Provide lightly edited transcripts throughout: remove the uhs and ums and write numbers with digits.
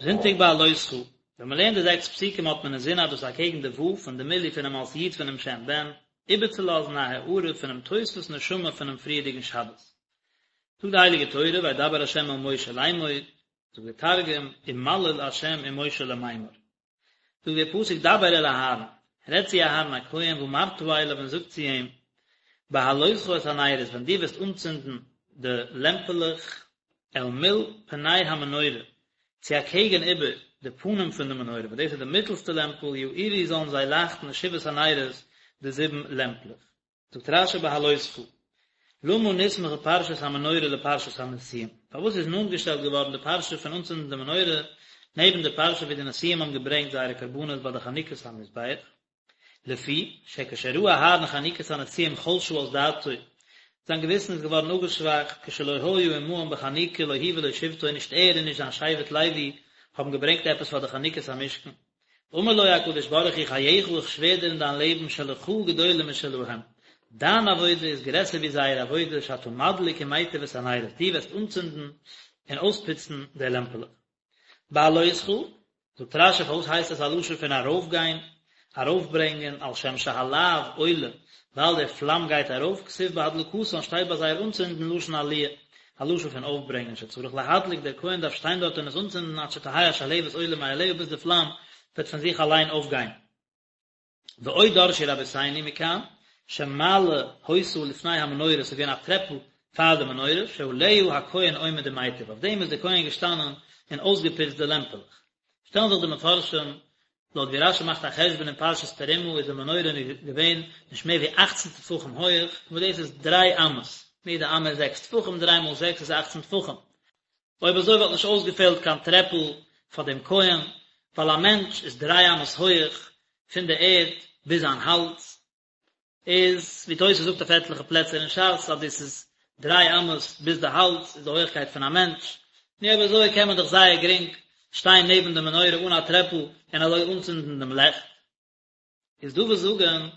זונטאג בהעלותך, ווען מען לערנט די זעקס פסוקים האט מען אינזין אז דאס איז אקעגן די ו' פון די מילוי פונעם אות י' פונעם שם ב"ן, איבערצולאזן א הארה פונעם תוספות נשמה פונעם פריערדיגן שבת. זאגט די הייליגע תורה וידבר ה' אל משה לאמור, זאגט דער תרגום, ומליל ה' עם משה למימר. זאגט דער פסוק דבר אל אהרן, רעד צו אהרן הכהן ואמרת אליו און זאג צו אים, בהעלותך את הנרות ווען דו וועסט אנצינדן די לעמפעלעך אל מול פני המנורה, צו אקעגן איבער די פנים פון די מנורה, וואס דאס איז די מיטלסטע לעמפל, יאירו זאלן זיי לייכטן שבעת הנרות, די זיבן לעמפלעך. זאגט רש"י בהעלותך, למה נסמכה פרשת המנורה לפרשת הנשיאים? פארוואס איז נאנט געשטעלט געווארן די פרשה פון אנצינדן די מנורה נעבן די פרשה ווי די נשיאים האבן געברענגט זייערע קרבנות ביי די חנוכת המזבח? לפי שכשראה אהרן חנוכת הנשיאים חלשה אז דעתו, זיין געוויסן איז געווארן אפגעשוואכט, כשלא היה עמהם בחנוכה לא הוא ולא שבטו, נישט ער און נישט זיין שבט לוי האבן געברענגט עפעס פאר די חנוכת המשכן. אמר לו הקדוש ברוך הוא חייך איך שווער דיר אין דיין לעבן שלך גדולה משלהם, דיין עבודה איז גרעסער ווי זייער עבודה שאתה מדליק ומיטיב את הנרות, דו וועסט אנצינדן און אויספוצן די לעמפעלעך. בהעלותך, זאגט רש"י פארוואס הייסט עס א לשון פון ארויפגיין, ארויפברענגען, על שם שהלהב עולה, ווייל דער פלאם גייט ארויף, כתיב בהדלקתן שטייט ביי זייער אנצינדן לשון עליה, א לשון פון אויפברענגען שצריך להדליק, דער כהן דארף שטיין דארט און עס אנצינדן עד שתהא השלהבת עולה מאליה ביז די פלאם וועט פון זיך אליין אויפגיין. ועוד דרשו רבותינו מכאן, שמעלה היתה לפני המנורה, ס'איז געווען א טרעפל פאר די מנורה, שעליה הכהן עומד ומיטיב, אויף דעם איז דער כהן געשטאנען און אויסגעפוצט די לעמפעלעך. שטעלן זיך די מפרשים, לויט ווי רש"י מאכט א חשבון אין פרשת תרומה איז די מנורה געווען נישט מער ווי אכצן טפחים הויעך, וואס דאס איז דריי אמות, יעדע אמה איז זעקס טפחים, דריי מאל זעקס איז אכצן טפחים. אויב אזוי וואלט נישט אויסגעפעלט קיין טרעפל פאר דעם כהן, ווייל א מענטש איז דריי אמות הויעך פון די ערד ביז זיין האלז, איז ווי תוס' זאגט אויף עטליכע פלעצער אין ש"ס אז דאס איז דריי אמות ביז די האלז איז די הויעכקייט פון א מענטש, נו אויב אזוי קען מען דאך זייער גרינג שטיין נעבן די מנורה אן א טרעפל און אזוי אנצינדן דעם לעכט. איז דא וואס זאגן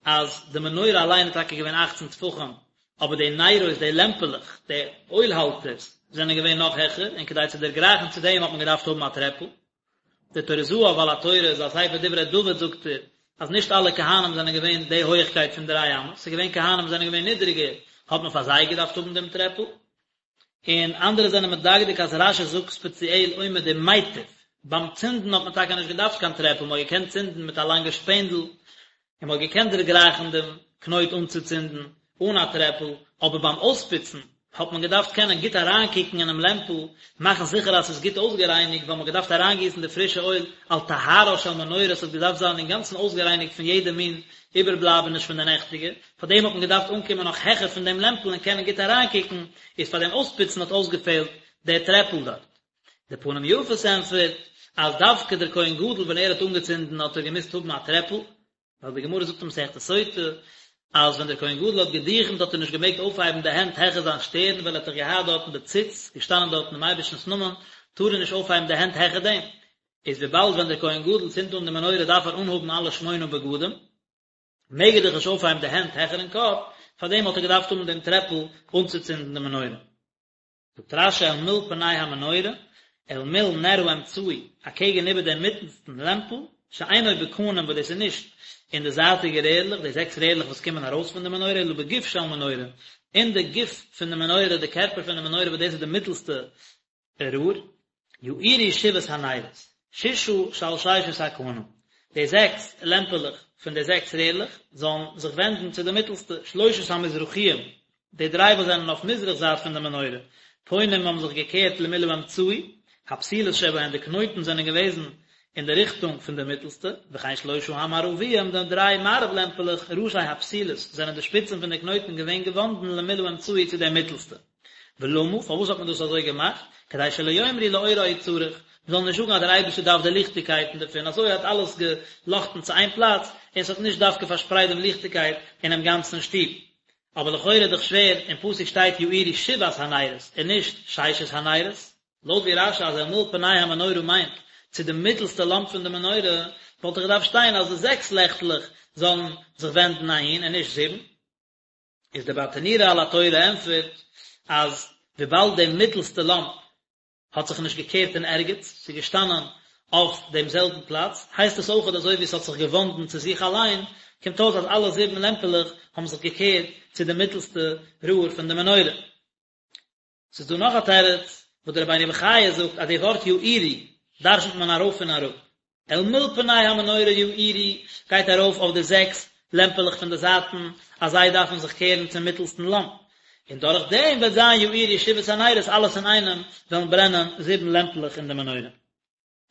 אז די מנורה אליין איז טאקע געווען אכצן טפחים, אבער די נרות, די לעמפעלעך, די אויל האלטערס, זענען געווען נאך העכער, און כדי צו דערגרייכן צו דעם האט מען געדארפט האבן א טרעפל. דער טורי זהב על התורה אין זיין ספר דברי דוד זאגט ער אז נישט אלע כהנים זענען געווען די הויעכקייט פון דריי אמות, ס'איז געווען כהנים וואס זענען געווען נידריגער, האט מען פאר זיי געדארפט האבן דעם טרעפל. און אנדערע זענען מדקדק אז רש"י זאגט ספעציעל עומד ומיטיב, ביים צינדן האט מען טאקע נישט געדארפט קיין טרעפל, מען האט געקענט צינדן מיט א לאנגע שפענדל, און מען האט געקענט דערגרייכן דעם קנויט אנצוצינדן אן א טרעפל, אבער ביים אויספוצן האט מען געדארפט קענען גוט אריינקוקן אינעם לעמפל, מאכן זיכער אז ס'איז גוט אויסגערייניגט, ווייל מ'האט געדארפט אריינגיסן די פרישע אויל על טהרה של מנורה, ס'האט געדארפט זיין אינגאנצן אויסגערייניגט פון יעדע מין איבערבלייבעניש פון די נעכטיגע, פאר דעם האט מען געדארפט אנקומען נאך העכער פון דעם לעמפל און קענען גוט אריינקוקן, איז פאר דעם אויספוצן האט אויסגעפעלט דער טרעפל דארט. דער פנים יפות ענטפערט אז דווקא דער כהן גדול ווען ער האט אנגעצינדן האט ער געמוזט האבן א טרעפל, ווייל די גמרא זאגט אין מסכת סוטה אז ווען דער כהן גדול האט געדוכנט האט ער נישט געמעגט אויפהייבן די הענט העכער זיין שטערן ווייל ער האט דאך געהאט דארטן די ציץ, געשטאנען דארטן דעם אייבערשטנ'ס נאמען, טאר ער נישט אויפהייבן די הענט העכער דעם. איז וויבאלד ווען דער כהן גדול צינדט אן די מנורה דארף ער אנהאבן אלע שמונה בגדים, מעג ער דאך נישט אויפהייבן די הענט העכערן קאפ, פארדעם האט ער געדארפט האבן דעם טרעפל אנצוצינדן די מנורה. זאגט רש"י אל מול פני המנורה, אל מול נר האמצעי, אקעגן איבער דעם מיטנסטן לעמפל, שאינו בקנים וואס דאס איז נישט אין די זייטיגע רערלעך, די זעקס רערלעך וואס קומען ארויס פון די מנורה, אלא בגוף של מנורה, אין די גוף פון די מנורה, די קערפער פון די מנורה וואס דאס איז די מיטלסטע רער, יאירו שבעת הנרות, ששה שעל ששת הקנים, די זעקס לעמפעלעך פון די זעקס רערלעך זאלן זיך ווענדן צו די מיטלסטע, שלושת המזרחיים, די דריי וואס זענען אויף מזרח זייט פון די מנורה, פונים האבן זיך געקערט למול האמצעי, הפתילות שבהן די קנויטן זענען געוועזן אין די ריכטונג פון די מיטלסטע, וכן שלושה המערביים, די דריי מערב לעמפעלעך, ראשי הפתילות, זענען די שפיצן פון די קנויטן געווען געוואנדן למול האמצעי צו די מיטלסטע. ולמה, פארוואס האט מען דאס אזוי געמאכט? כדי שלא יאמרו לאורה הוא צריך, מען זאל נישט זאגן אז דער אייבערשטער דארף די ליכטיגקייטן דערפון, אזוי האט אלעס געלאכטן צו איין פלאץ, און עס האט נישט דווקא פארשפרייט דעם ליכטיגקייט אינעם גאנצן שטוב. אבער לכאורה איז דאך שווער, אין פסוק שטייט יאירו שבעת הנרות, און נישט ששת הנרות. לויט ווי רש"י אז אל מול פני המנורה מיינט צו די מיטלסטע לאמפ פון די מנורה, וואלט דאך געדארפט שטיין אז די זעקס לעכטלעך זאלן זיך ווענדן אהין און נישט זיבן. איז דער ברטנורא על התורה ענטפערט אז וויבאלד די מיטלסטע לאמפ. האט זיך נישט געקערט אין ערגעץ, ס'איז געשטאנען אויף דעם זעלבן פלאץ, הייסט עס אויכעט אזוי ווי עס האט זיך געוואנדן צו זיך אליין, קומט אויס אז אלע זיבן לעמפעלעך האבן זיך געקערט צו די מיטלסטע ראר פון די מנורה. ס'איז דא נאך א תירוץ וואס דער רבינו בחיי זאגט אז די ווארט יאירו דרשנ'ט מען ארויף און אראפ, אל מול פני המנורה יאירו גייט ארויף אויף די זעקס לעמפעלעך פון די זייטן אז זיי דארפן זיך קערן צום מיטלסטן לאמפ, און דורך דעם וועט זיין יאירו שבעת הנרות אלעס אינאיינעם וועלן ברענען זיבן לעמפלעך אין די מנורה.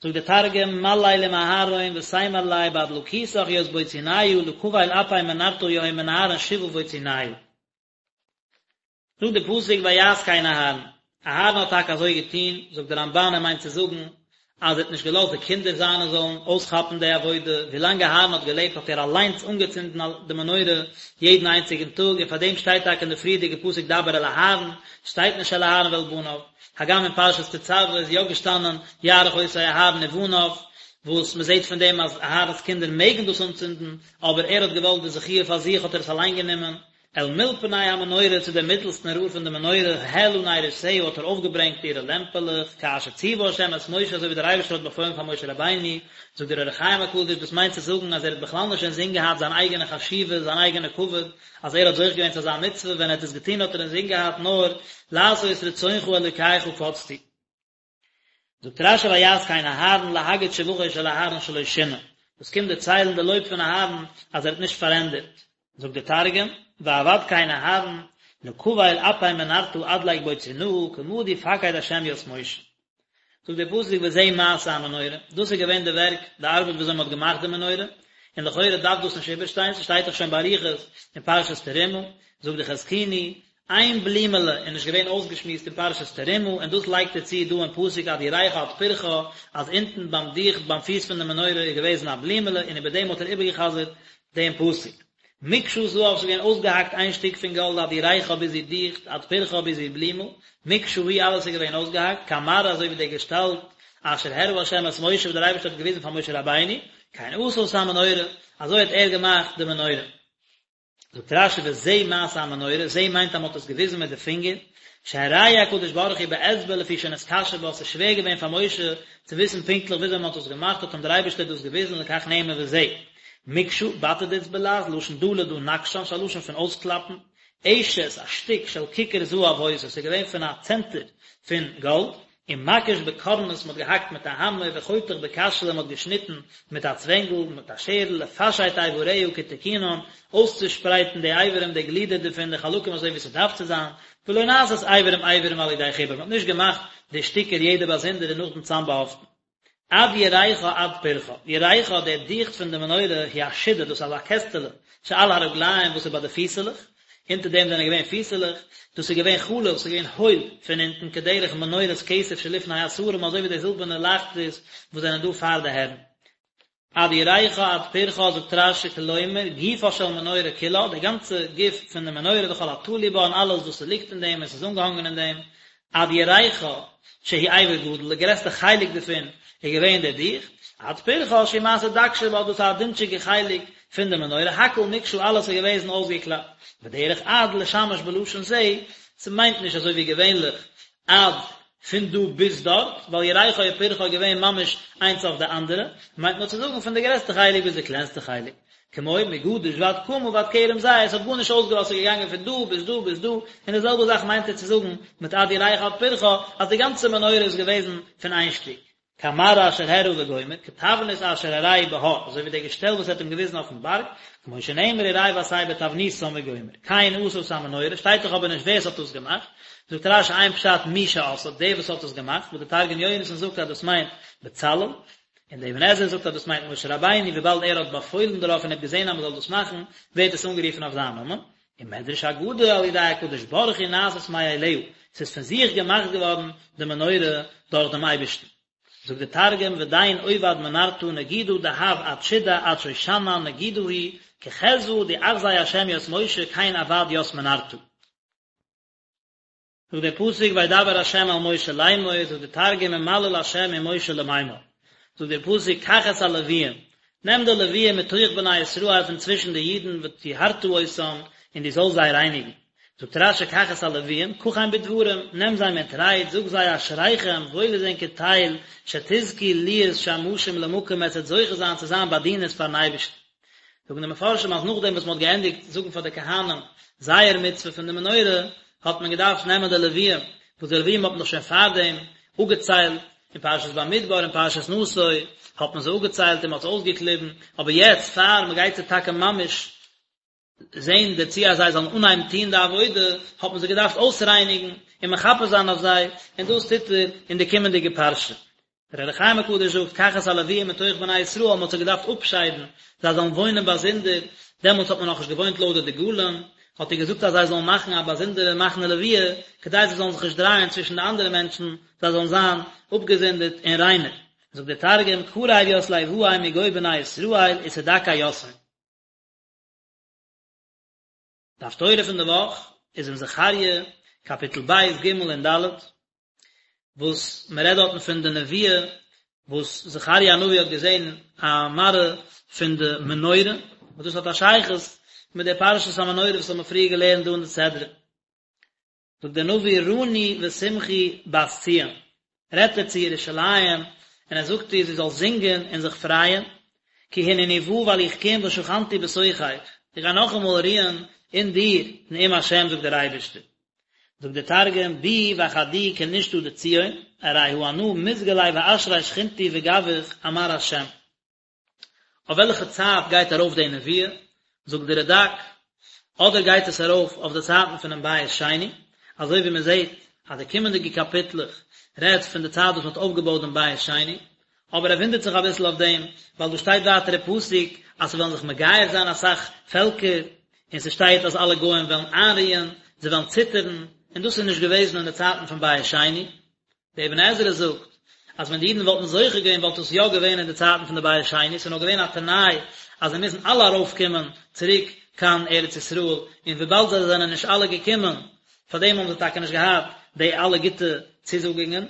זאגט דער תרגום, מליל עם אהרן ותימר ליה באדלקותך ית בוציניא לקבל אפי מנרתא יהון מנהרין שבעה בוציניא. זאגט די פסוק ויעש כן אהרן, אהרן האט טאקע אזוי געטון, זאגט די רמב"ן ער מיינט צו זאגן אז ער האט נישט געלאזט די קינדער זיינע זאלן אויסכאפן די עבודה, ווילאנג אהרן האט געלעבט האט ער אליינס אנגעצינדן די מנורה יעדן איינציגן טאג, און פאר דעם שטייט טאקע אין די פריערדיגע פסוק דבר אל אהרן, שטייט נישט אל אהרן ואל בניו, הגם אין פרשת תצוה איז יא געשטאנען יערוך אותו אהרן ובניו, וואס מען זעט פון דעם אז אהרן'ס קינדער מעגן דאס אנצינדן, אבער ער האט געוואלט די זכיה פאר זיך האט ער עס אליין גענומען, אל מול פני המנורה צו דעם מיטלסטן ראר פון די מנורה, העלה נרותיה האט ער אויפגעברענגט אירע לעמפעלעך, כאשר ציווה ה' את משה אזוי ווי דער אייבערשטער האט באפוילן פאר משה רבינו, זאגט דער אור החיים הקדוש דאס מיינט צו זאגן אז ער האט בכלל נישט אינזין געהאט זיין אייגענע חשיבות זיין אייגענע כבוד אז ער האט זוכה געווען צו אזא מצוה ווען ער האט עס געטון האט ער אינזין געהאט נאר לעשות רצונך אלוקי חפצתי. זאגט רש"י ויעש כן אהרן להגיד שבחו של אהרן שלא שינה, דאס קומט דערציילן די לויב פון אהרן אז ער האט נישט פארענדערט, זאגט דער תרגום, ועבד כן אהרן לקבל אפי מנרתא אדליק בוצינהא כמה די פקיד השם ית משה. זאגט דער פסוק וזה מעשה המנורה, דאס איז געווען די ווערק, די ארבעט ווי אזוי מען האט געמאכט די מנורה, און לכאורה דארף דאס נישט איבערשטיין, ס'שטייט דאך שוין באריכות אין פרשת תרומה, זאגט די חזקוני, איין בלימעלע איז נישט געווען אויסגעשמועסט אין פרשת תרומה, און דאס לייגט ער צו דא אין פסוק עד ירכה עד פרחה, אז אונטן ביים דיכט ביים פיס פון די מנורה איז געוועזן א בלימעלע און איבער דעם האט ער איבערגעחזרט דעם פסוק. מקשה זהב ס'איז געווען אויסגעהאקט איין שטיק פון גאלד עד ירכה ביז איר דיכט, עד פרחה ביז איר בלימל, מקשה היא אלעס איז געווען אויסגעהאקט, כמראה אזוי ווי דער געשטאלט אשר הראה ה' את משה וואס דער אייבערשטער האט געוויזן פאר משה רבינו, כן עשה את המנורה, אזוי האט ער געמאכט די מנורה. זאגט רש"י וזה מעשה המנורה, זה מיינט אז מען האט עס געוויזן מיט די פינגער, שהראהו הקדוש ברוך הוא באצבע לפי שנתקשה בה, ס'איז שווער געווען פאר משה צו וויסן פונקטליך וויאזוי מען האט עס געמאכט, האט אים דער אייבערשטער דאס געוויזן לכך נאמר וזה. מקשה, בתדץ בלע"ז, לשון דא לדא נקשן, ס'איז א לשון פון אויסקלאפן, עשת, א שטיק של כיכר זהב היתה, ס'איז געווען פון א צענטער פון גאלד, ומקיש בקורנס מ'האט געהאקט מיט א האמער וחותך בקשלא מ'האט געשניטן מיט א צווענגל מיט א שערל לפשט איבריה כתיקונן אויסצושפרייטן די אברים די גלידער דערפון די חלקים אזוי ווי ס'דארף צו זיין ולא נעשית איברים איברים על ידי חיבור מ'האט נישט געמאכט די שטיקער יעדע באזונדער און נאכדעם צאמבאהאפטן. עד ירכה עד פרחה, ירכה דער דיכט פון די מנורה היא השידה דאס איז אזא קעסטעלע שעל הרגליים וואס איז ביי די פיסעלעך, אונטער דעם זענען געווען פיסעלעך, דאס איז געווען חלול, ס'איז געווען הויל פון אונטן כדרך מנורת כסף שלפני השרים אזוי ווי די זילבערנע לייכטערס וואס זענען דא פאר די הערן. עד ירכה עד פרחה זאגט רש"י כלומר גופה של מנורה כולה, די גאנצע גוף פון די מנורה וכל התלוי בה און אלעס וואס ס'ליגט אין דעם און ס'איז אנגעהאנגען אין דעם, עד ירכה שהוא אבר גדול, די גרעסטע חלק דערפון איז געווען דער דיכט, עד פרחה שהוא מעשה דק שבה, דאס איז א דינטשיגע חלק פון די מנורה, הכל מקשה אלעס איז געוועזן אויסגעקלאפט, ודרך עד לשמש בלשון זה, ס'מיינט נישט אזוי ווי געווענליך עד פון דא ביז דארט, ווייל ירכה און פרחה איז געווען ממש איינס אויף די אנדערע, מיינט נאר צו זאגן פון די גרעסטע חלק ביז די קלענסטע חלק. כמו מגדיש ועד קמה ועד כרם זית, עס האט גארנישט אויסגעלאזט ס'איז געגאנגען פון דא ביז דא ביז דא, און די זעלבע זאך מיינט ער צו זאגן מיט עד ירכה עד פרחה, אז די גאנצע מנורה איז געוועזן פון איין שטיק. כמראה אשר הראה וגומר, כתבנית אשר הראהו בהר, אזוי ווי דער געשטעל וואס ער האט אים געוויזן אויפן בארג, כמו שנאמר וראה ועשה בתבניתם וגומר. כן עשה את המנורה, שטייט דאך אבער נישט ווער עס האט דאס געמאכט, זאגט רש"י איין פשט מי שעשאה, דער וואס האט עס געמאכט, וואס דער תרגום יונתן זאגט אז דאס מיינט בצלאל, און דער אבן עזרא זאגט אז דאס מיינט משה רבינו, וויבאלד ער האט באפוילן דערויף און ער האט געזען אז מען זאל דאס מאכן, ווערט עס אנגערופן אויף זיין נאמען. ומדרש אגדה על ידי הקדוש ברוך הוא נעשית מאליה, ס'איז פון זיך געמאכט געווארן די מנורה דורך דעם אייבערשטן. זאגט דער תרגום ודין עובד מנרתא נגידא דהב עד שידא עד שושנא נגידא היא כחזוה דאחזי השם ית משה כן עבד ית מנרתא. זאגט דער פסוק וידבר ה' אל משה לאמור, זאגט דער תרגום ומליל ה' עם משה למימר, זאגט דער פסוק קח את הלוויים, נעם די לוויים מתוך בני ישראל פון צווישן די אידן וטהרת אותם, און דו זאלסט זיי רייניגן. זאגט רש"י קח את הלוויים, קחם בדברים, נעם זיי מיט רייד, זאג זיי אשריכם, וואויל איז ענקער טייל, שתזכו להיות שמשים למקום עטס וועט זוכה זיין צו זיין באדינערס פארן אייבערשטן. זאגן די מפרשים אז נאכדעם וואס מען האט געענדיגט זאגן פאר די כהנים זייער מצוה פון די מנורה, האט מען געדארפט נעמען די לוויים, וואס די לוויים האט מען דאך שוין פארדעם אפגעציילט, אין פרשת במדבר און פרשת נשא האט מען זיי אפגעציילט און מען האט זיי אויסגעקליבן, אבער יעצט פאר מען גייט זיי טאקע ממש זען דערצו אז זיי זאלן אנהייבן טון די עבודה, האט מען זיי געדארפט אויסרייניגן און מכפר זיין אויף זיי, און דאס טוט ער אין די קומענדיגע פרשה. דער אור החיים הקדוש זאגט, קח את הלוויים מתוך בני ישראל, מען האט זיי געדארפט אפשיידן, זיי זאלן וואוינען באזונדער, דעמאלטס האט מען נאכנישט געוואוינט לויט די דגלים, האט ער געזאגט אז זיי זאלן מאכן א באזונדערע מחנה לוויה, כדי זיי זאלן זיך נישט דרייען צווישן די אנדערע מענטשן, זיי זאלן זיין אפגעזונדערט און ריינער. זאגט דער תרגום, קריב ית ליואי מגו בני ישראל ותדכי יתהון. די הפטורה פון די וואך איז אין זכריה קאפיטל ב' ג' און ד', וואס מען רעדט דארטן פון די נבואה וואס זכריה הנביא האט געזען א מראה פון די מנורה, וואס דאס האט א שייכות מיט די פרשת המנורה וואס האבן מיר פריער געלערנט דא אין די סדרה. זאגט דער נביא רני ושמחי בת ציון, רעדט ער צו ירושלים און ער זאגט איר זי זאל זינגען און זיך פרייען, כי הנני בא ווייל איך קום ושכנתי בתוכך, איך גיי נאכאמאל רוען אין דיר, נאום השם זאגט דער אייבערשטער. זאגט דער תרגום, ביאי ואחדי כנישתא דציון, ארי הא אנא מתגלי ואשרי שכינתי בגווך אמר השם. אויף וועלכע צייט גייט ארויף די נבואה? זאגט די רד"ק, אדער גייט עס ארויף אויף די צייטן פונעם בית שני, אזוי ווי מען זעט אז די קומענדיגע קאפיטלעך רעדט פון די צייט וואס מען האט אויפגעבויט דעם בית שני, אבער ער וואונדערט זיך אביסל אויף דעם, ווייל דא שטייט ווייטער אין פסוק אז ס'וועלן זיך מגייר זיין אסאך פעלקער, און ס'שטייט אז אלע גוים וועלן איינרוען, זיי וועלן ציטערן, און דאס איז נישט געוועזן אין די צייטן פון בית שני. דער אבן עזרא זאגט אז ווען די אידן וואלטן זוכה געווען וואלט עס יא געווען אין די צייטן פון די בית שני, ס'איז נאר געווען א תנאי אז זיי מוזן אלע ארויפקומען צוריק קיין ארץ ישראל, און וויבאלד זיי זענען נישט אלע געקומען, פארדעם האבן זיי טאקע נישט געהאט די אלע גוטע צוזאגונגען.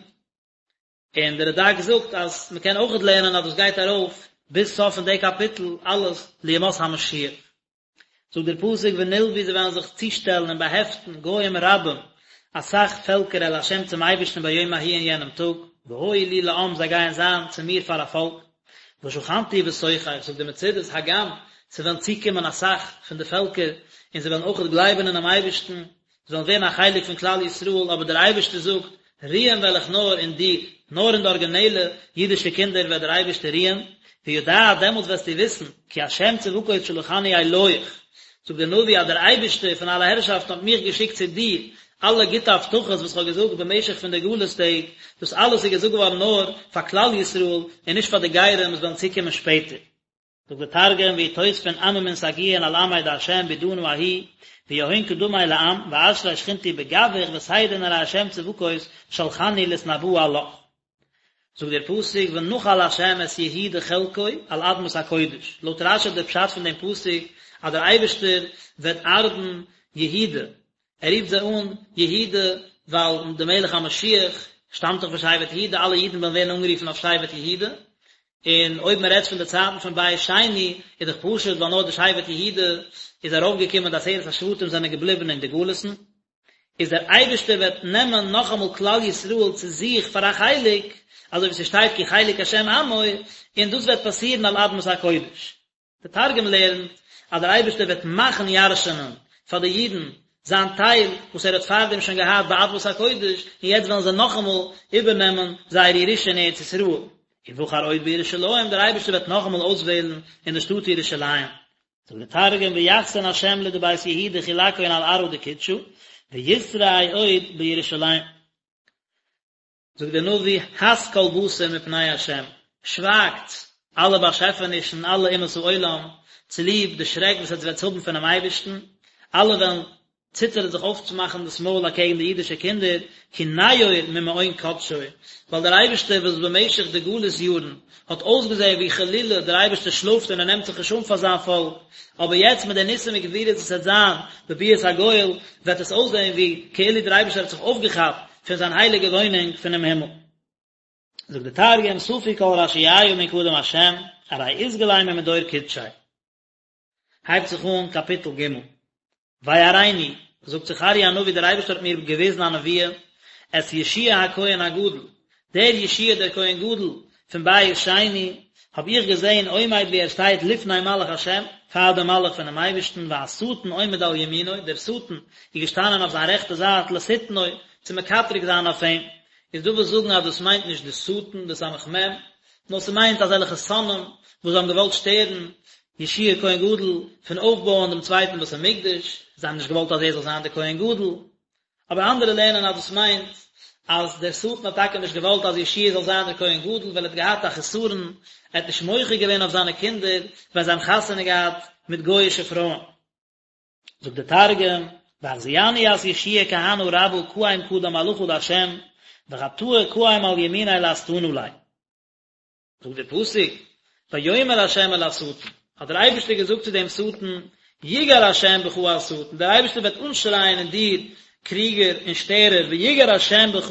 און דער רד"ק זאגט אז מ'קען אויכעט לערנען אז דאס גייט ארויף ביז סוף פון די קאפיטל אלעס לימות המשיח. זאגט דער פסוק ונלוו זיי וועלן זיך צושטעלן און באהעפטן גוים רבים, אסאך פעלקער אל ה' צום אייבערשטן ביום ההוא אין יענעם טאג, והיו לי לעם זיי גייען זיין צו מיר פאר א פאלק, ושכנתי בתוכך, זאגט די מצודות הגם ס'וועלן צוקומען אסאך פון די פעלקער און זיי וועלן אויכעט גלייבן אינעם אייבערשטן, זיי וועלן ווערן א חלק פון כלל ישראל, אבער דער אייבערשטער זאגט, רוען וועל איך נאר אין דיר, נאר אין די ארגינעלע אידישע קינדער וועט דער אייבערשטער רוען, וידעת, דעמאלטס וועסטו וויסן, כי השם צבקות שלחני אליך, זאגט דער נביא אז דער אייבערשטער פון אלע הערשאפטן האט מיך געשיקט צו דיר, אלע גוטע הבטחות וואס איך האב געזאגט במשך פון די גלות טעג, דאס אלעס איז געזאגט געווארן נאר פאר כלל ישראל און נישט פאר די גרים וואס וועלן צוקומען שפעטער. זאגט דער תרגום ויתוספון עממין סגיאין על עמיה דהשם בעידנא ההיא ויהון קדמי לעם ואשרי שכינתי בגווך ותדעון ארי השם צבקות שלחני לתנבאה עלך. זאגט דער פסוק ונחל השם את יהודה חלקו על אדמת הקודש, לויט רש"י איז דער פשט פון דעם פסוק אז דער אייבערשטער וועט ארבן יהודה, ער רופט זיי אן יהודה ווייל דער מלך המשיח שטאמט דאך פון שבט יהודה, אלע אידן וועלן ווערן אנגערופן אויף שבט יהודה, און אויב מען רעדט פון די צייטן פון בית שני איז דאך פשוט ווייל נאר די שבט יהודה איז ארויפגעקומען די עשרת השבטים זענען געבליבן אין די גלות'ן, איז דער אייבערשטער וועט נעמען נאכאמאל כלל ישראל צו זיך פאר א חלק, אזוי ווי ס'שטייט כי חלק השם עמו, און דאס וועט פאסירן על אדמת הקודש. דער תרגום לערנט אז דער אייבערשטער וועט מאכן ירש'נען פאר די אידן זיין טייל וואס ער האט פארדעם שוין געהאט באדמת הקודש, און יעצט וועלן זיי נאכאמאל איבערנעמען זייער ירושה אין ארץ ישראל. ובחר עוד בירושלים, דער אייבערשטער וועט נאכאמאל אויסוועלן אין די שטאט ירושלים. זאגט דער תרגום ויחסן השם לדבית יהודה חולקהון על ארעא דקודשא, ויתרעי עוד בירושלים. זאגט דער נביא, הס כל בשר מפני השם, שווייגטס, אלע באשעפענישן, אלע אומות העולם, צוליב די שרעק וואס עטס וועטס האבן פונעם אייבערשטן, אלע וועלן ציטערן זיך אויפצומאכן דאס מויל אקעגן די אידישע קינדער, כי נאור ממעון קדשו, ווייל דער אייבערשטער וואס במשך די גלות יארן האט אויסגעזען ווי חלילה דער אייבערשטער שלאפט און ער נעמט זיך נישט אן פאר זיין פאלק, אבער יעצט מיט די ניסים וגבורות וואס וועט זיין בביאת הגואל, וועט עס אויסזען ווי כאילו דער אייבערשטער האט זיך אויפגעכאפט פון זיין הייליגע וואוינונג פונעם הימל. זאגט דער תרגום, ספו כל רשיעיא מן קדם השם, ארי אתגלי ממדור קודשיה. הייבט זיך אן קאפיטל ג', ויראני. זאגט זכריה הנביא דער אייבערשטער האט מיר געוויזן א נבואה, את יהושע הכהן הגדול, דער יהושע דער כהן גדול פון בית שני, האב איך געזען עומד ווי ער שטייט לפני מלאך השם, פאר דעם מלאך פונעם אייבערשטן, והשטן עומד על ימינו, דער שטן איז געשטאנען אויף זיין רעכטע זייט לשטנו, צו מקטרג זיין אויף אים. איז דא וואס זאגן אז דאס מיינט נישט די שטן, די סמך מם, נאר ס'מיינט אזעלכע שונאים וואס האבן געוואלט שטערן יהושע כהן גדול פון אויפבויען דעם צווייטן בית המקדש, זיי האבן נישט געוואלט אז ער זאל זיין דער כהן גדול. אבער אנדערע לערנען אז דאס מיינט אז דער שטן האט טאקע נישט געוואלט אז יהושע זאל זיין דער כהן גדול ווייל ער האט געהאט א חסרון, ער האט נישט מוחה געווען אויף זיינע קינדער ווען זיי האבן חתונה געהאט מיט גוי'אישע פרויען. זאגט דער תרגום, ואחזיתני ית יהושע כהנא רבא קאים קדם מלאכא דהשם, וחטאה קאים על ימיניה לאסטנא ליה. זאגט דער פסוק, ויאמר ה' אל השטן, האט דער אייבערשטער געזאגט צו דעם שטן, יגער ה' בך השטן, דער אייבערשטער וועט אנשרייען אין דיר, קריגער און שטערער, ויגער ה' בך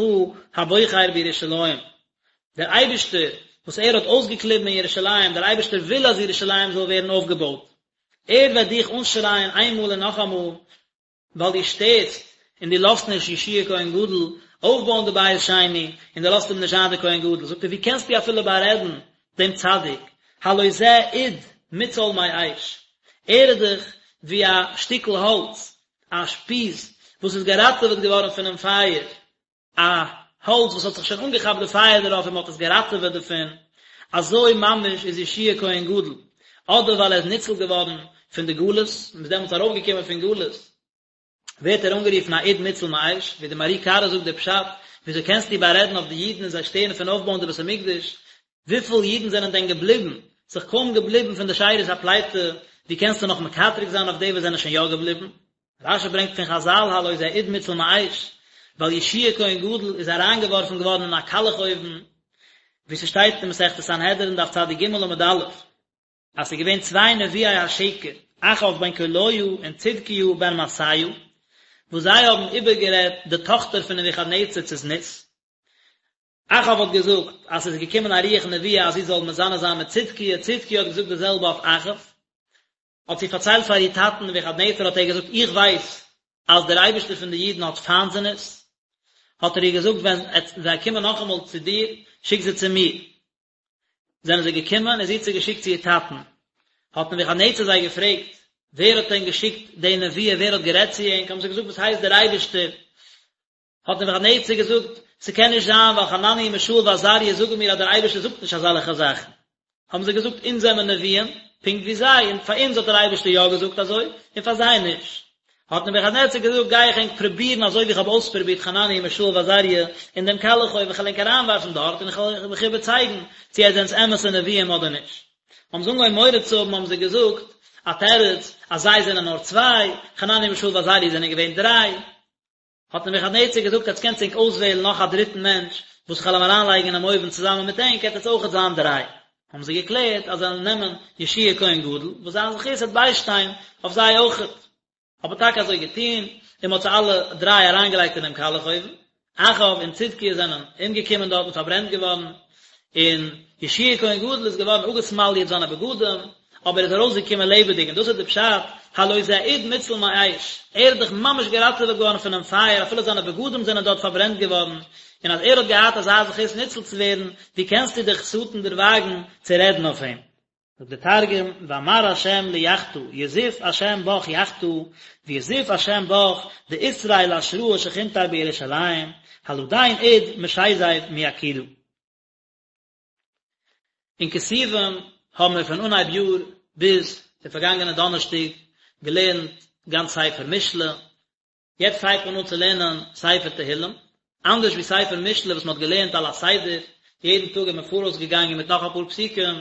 הבוחר בירושלים, דער אייבערשטער וואס ער האט אויסגעקליבן אין ירושלים, דער אייבערשטער וויל אז ירושלים זאל ווערן אויפגעבויט, ער וועט דיך אנשרייען איינמאל און נאכאמאל, ווייל דו שטערסט און דו לאזט נישט יהושע כהן גדול אויפבויען די בית שני, און דו לאזט אים נישט זיין דער כהן גדול, זאגט ער, ווי קענסטו אפילו בארעדן דעם צדיק, הלא זה אוד מוצל מאש, ער איז דאך ווי א שטיקל האלץ, א שפיז וואס איז געראטעוועט געווארן פונעם פייער, א האלץ וואס האט זיך שוין אנגעכאפט די פייער דערויף און מען האט עס געראטעוועט דערפון, אזוי ממש איז יהושע כהן גדול, אדער ווייל ער איז ניצול געווארן פון די גלות, מען איז דעמאלטס ארויפגעקומען פון גלות, ווערט ער אנגערופן א אוד מוצל מאש, ווי די מהר"י קרא זאגט די פשט, וויאזוי קענסטו בארעדן אויף די אידן און זיי שטערן פון אויפבויען די בית המקדש, וויפיל אידן זענען דען געבליבן, ס'איז קוים געבליבן פון די שארית הפליטה, ווי קענסטו נאך מקטרג זיין אויף די וואס זענען שוין יא געבליבן? רש"י ברענגט פון חז"ל הלא זה אוד מוצל מאש, ווייל יהושע כהן גדול איז אריינגעווארפן געווארן אין א קאלעך אויוון, ווי ס'שטייט אין מסכת סנהדרין דף צ"ג עמוד א', אז ס'איז געווען צוויי נביאי השקר, אחאב בן קוליה און צדקיהו בן מעשיה, וואס זיי האבן איבערגערעדט די טאכטער פון נבוכדנצר צו זנות. אחאב האט געזאגט אז ס'איז געקומען א רוח נבואה אז זי זאל מזנה זיין מיט צדקיה, צדקיה האט געזאגט די זעלבע אויף אחאב. האט זי פארציילט פאר איר טאטן נבוכדנצר האט ער געזאגט איך ווייס אז דער אייבערשטער פון די אידן האט פיינט זנות, האט ער איר געזאגט ווען זיי קומען נאכאמאל צו דיר שיק זיי צו מיר, זענען זיי געקומען און זי האט זיי געשיקט צו איר טאטן, האט נבוכדנצר זיי געפרעגט ווער האט דען געשיקט די נבואה ווער האט גערעדט צו ענק, האבן זיי געזאגט וואס הייסט דער אייבערשטער, האט נבוכדנצר געזאגט, ס'קען נישט זיין, ווייל חנניה מישאל ועזריה זאגן מיר אז דער אייבערשטער זאגט נישט אזעלכע זאכן. האבן זיי געזאגט, אונז זעמער נביאים, פונקט ווי זיי, און פאר אונז האט דער אייבערשטער יא געזאגט אזוי, און פאר זיי נישט. האט נבוכדנצר געזאגט, גיי איך ענק פרובירן אזוי ווי איך האב אויספרובירט חנניה מישאל ועזריה אין דעם קאלעך אויוון, איך וועל ענק אריינווארפן דארט, און איך וועל מיך איבערצייגן צי עטס זענטס אמת'ע נביאים אדער נישט. האבן זיי אנגעהויבן מורא צו האבן, האבן זיי געזאגט א תירוץ, אז זיי זענען נאר צוויי, חנניה מישאל ועזריה זענען געווען דריי. האט נבוכדנצר געזאגט עטס קענטס ענק אויסוועלן נאך א דריטן מענטש וואס איך וועל אים אריינלייגן אינעם אויוון צוזאמען מיט ענק עט עטס אויכעט זיין דריי. האבן זיי געקלערט אז זיי וועלן נעמען יהושע כהן גדול וואס זיין זכות וועט ביישטיין אויף זיי אויכעט. האט מען טאקע אזוי געטון און מען האט זיי אלע דריי אריינגעלייגט אינעם קאלעך אויוון. אחאב און צדקיה זענען אומגעקומען דארט און פארברענט געווארן, און יהושע כהן גדול איז געווארן אפגעסמאליעט זיינע בגדים, אבער ער איז ארויסגעקומען לעבעדיג, און דאס איז די פשט, הלא זה אוד מוצל מאש, ער איז דאך ממש געראטעוועט געווארן פונעם פייער, אפילו זיינע בגדים זענען דארט פארברענט געווארן, און אז ער האט געהאט אזא זכות ניצול צו ווערן, ווי קענסטו דיך שטן דערוואגן צו רעדן אויף אים? זאגט דער תרגום, ואמר ה' ליחטא, יזיף ה' בך יחטא, ויזיף ה' בך דאתרעי לאשראה שכינתיה בירושלים, הלדין אוד משיזיב מיקידא. אין כתובים האבן מיר פון אנהייב יאר ביז די פארגאנגענע דאנערשטאג געלערנט גאנץ ספר משלי, יעצט הייבט מען אן צו לערנען ספר תהילים, אנדערש ווי ספר משלי וואס מען האט געלערנט על הסדר, יעדן טאג איז מען פאראויס געגאנגען מיט נאך אפאר פסוקים,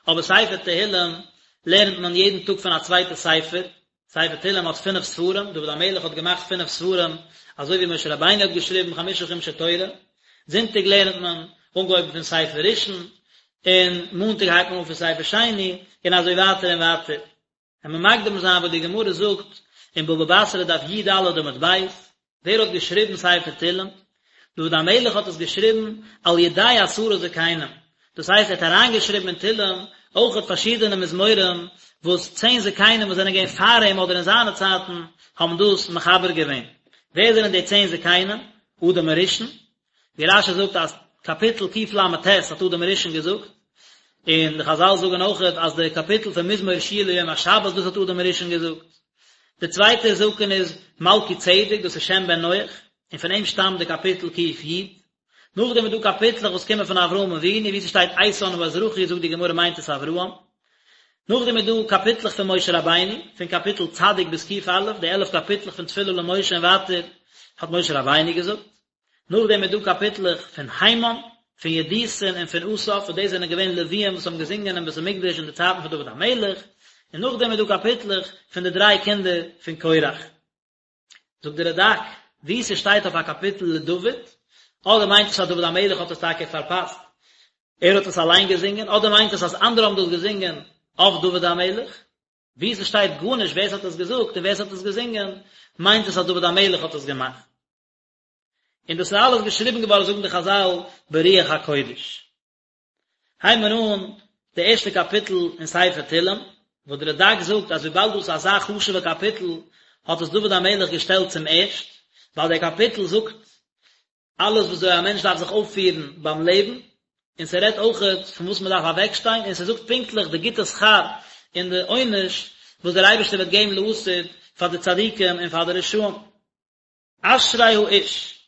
אבער ספר תהילים לערנט מען יעדן טאג פון א צווייטע ספר, ספר תהילים האט פינף ספרים, דוד המלך האט געמאכט פינף ספרים, אזוי ווי משה רבינו האט געשריבן חמשה חומשי תורה, זונטאג לערנט מען אנגעהויבן פון ספר ראשון, און מאנטאג הייבט מען אן פון ספר שני, און אזוי ווייטער און ווייטער. וועלן מיר מקדים זיין וואס די גמרא זאגט אין בבא בתרא דף י"ד עמוד ב', ווער האט געשריבן ספר תהילים? דוד המלך האט עס געשריבן על ידי עשרה זקנים, דאס הייסט ער האט אריינגעשריבן אין תהילים. אויכעט פארשידענע מזמורים וואס צען זקנים וואס זענען געווען פאר אים אדער אין זיינע צייטן האבן דאס מחבר געווען. ווער זענען די צען זקנים? אדם הראשון, ווי רש"י זאגט אז קאפיטל קל"ט האט אדם הראשון געזאגט, און די חז"ל זאגן אויכעט אז די קאפיטל פון מזמור שיר ליום השבת דאס האט אדם הראשון געזאגט. די צווייטע זקן איז מלכי צדק דאס איז שם בן נח, און פון אים שטאמט די קאפיטל ק"י. נאכדעם איז דא קאפיטלעך וואס קומען פון אברהם אבינו ווי ס'שטייט איתן האזרחי זאגט די גמרא מיינט עס אברהם. נאכדעם איז דא קאפיטלעך פון משה רבינו, פון קאפיטל צדיק ביז ק"א, די עלף קאפיטלעך פון תפילה למשה און ווייטער האט משה רבינו געזאגט. נאכדעם איז דא קאפיטלעך פון הימן, פון ידותון און פון אסף, וואס דאס זענען געווען לוויים וואס האבן געזונגען אין בית המקדש אין די צייטן פון דוד המלך, און נאכדעם איז דא קאפיטלעך פון די דריי קינדער פון קורח. זאגט דער רד"ק, וואו ס'שטייט אויף א קאפיטל לדוד, אדער מיינט עס אז דוד המלך האט עס טאקע פארפאסט, ער האט עס אליין געזונגען, אדער מיינט עס אז אנדערע האבן דאס געזונגען אויף דוד המלך, וואו ס'שטייט גארנישט ווער ס'האט עס געזאגט און ווער ס'האט עס געזונגען, מיינט עס אז דוד המלך האט עס געמאכט. און דאס איז אלעס געשריבן געווארן זאגן די חז"ל ברוח הקודש. הייבן מיר אן די ערשטע קאפיטל אין ספר תהלים, וואס דער רד"ק זאגט אז וויבאלד דאס איז אזא חשוב'ע קאפיטל האט עס דוד המלך געשטעלט צום ערשט, ווייל דער קאפיטל זאגט אלעס וויאזוי א מענטש דארף זיך אויפפירן ביים לעבן, און ס'רעדט אויכעט פון וואס מ'דארף אוועקשטיין, און ס'זאגט פונקטליך די גוטע שכר און די עונש וואס דער אייבערשטער וועט געבן לעתיד פאר די צדיקים און פאר די רשעים. אשרי האיש,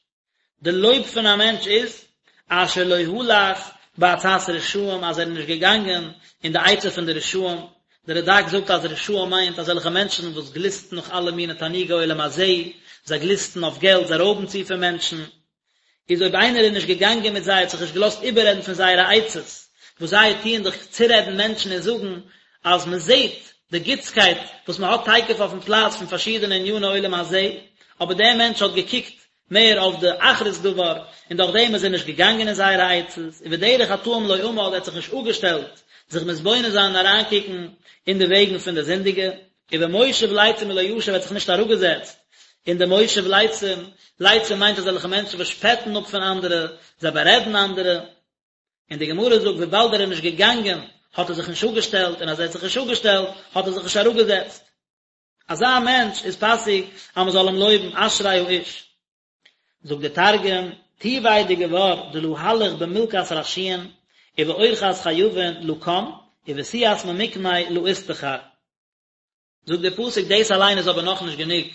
די לויב פון א מענטש איז, אשר לא הלך בעצת רשעים, אז ער איז נישט געגאנגען אין די עצה פון די רשעים, דער רד"ק זאגט אז רשעים מיינט אזעלכע מענטשן וואס גליסטן נאך אלע מיני תענוגי עולם הזה, זיי גליסטן אויף געלט, זיי רויבן צו פון מענטשן, איז אויב איינער איז נישט געגאנגען מיט זיי, האט זיך נישט געלאזט איבעררעדן פון זייערע עצות, וואס זיי טוען דאך צורעדן מענטשן און זאגן אז מען זעט די גוטסקייט וואס מען האט תיכף אויפן פלאץ פון פארשידענע עניני עולם הזה, אבער דער מענטש האט געקוקט מער אויף די אחרית דבר, און דורך דעם איז ער נישט געגאנגען אין זייערע עצות, ובדרך חטאים לא עמד, ער האט זיך נישט אפגעשטעלט זיך מתבונן זיין און אריינקוקן אין די וועגן פון די זינדיגע, ובמושב לצים לא ישב, ער האט זיך נישט אראפגעזעצט אין די מושב לצים, לצים מיינט אזעלכע מענטשן וואס שפעטן אפ פון אנדערע, זיי בארעדן אנדערע, און די גמרא זאגט וויבאלד ער איז נישט געגאנגען האט ער זיך נישט אפגעשטעלט, און אז ער האט זיך נישט אפגעשטעלט האט ער זיך נישט אראפגעזעצט. אזא מענטש איז פאסיג אז מען זאל אים לויבן, אשרי האיש. זאגט דער תרגום, טיביה דגבר דלא הלך במלכת רשיעין, ובאורחת חייבין לא קם, ובסיעת ממקמי לא אסתחר. זאגט דער פסוק דאס אליין איז אבער נאכנישט גענוג,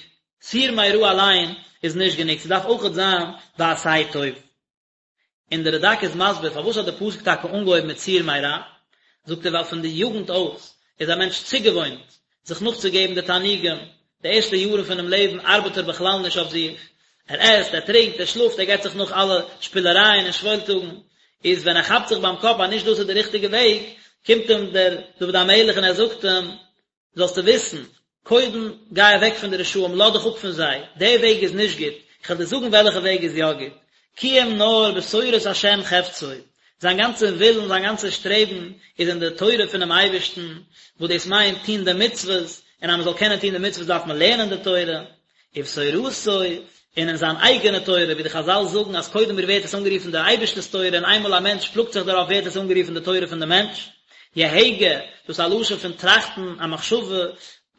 סור מרע אליין איז נישט גענוג, ס'דארף אויכעט זיין ועשה טוב. און דער רד"ק איז מסביר פארוואס האט דער פסוק טאקע אנגעהויבן מיט סור מרע, זאגט ער ווייל פון די יוגנט אויס איז א מענטש צוגעוואוינט זיך נאכצוגעבן די תענוגים, די ערשטע יארן פונעם לעבן ארבעט ער בכלל נישט אויף זיך, ער עסט, ער טרינקט, ער שלאפט, ער געבט זיך נאך אלע שפילערייען און שוואוילטאגן, איז ווען ער כאפט זיך ביים קאפ אז נישט דאס איז די ריכטיגע וועג, קומט אים דער דוד המלך און ער זאגט אים, זאלסטו וויסן, קודם גיי אוועק פון די רשעים, לאז דיך אפ פון זיי, דער וועג איז נישט גוט, איך וועל דיר זאגן וועלכע וועג איז יא גוט, כי אם נאר בתורת השם חפצו, זיין גאנצע ווילן, זיין גאנצע שטרעבן איז אין די תורה פונעם אייבערשטן, וואס דאס מיינט טון די מצוות, און אז מען זאל קענען טון די מצוות דארף מען לערנען די תורה, ובתורתו, און אין זיין אייגענע תורה, ווי די חז"ל זאגן אז קודם ווערט עס אנגערופן דער אייבערשטער'ס תורה און איינמאל א מענטש פלאגט זיך דערויף ווערט עס אנגערופן די תורה פון די מענטש. יהגה, דאס איז א לשון פון טראכטן, א מחשבה,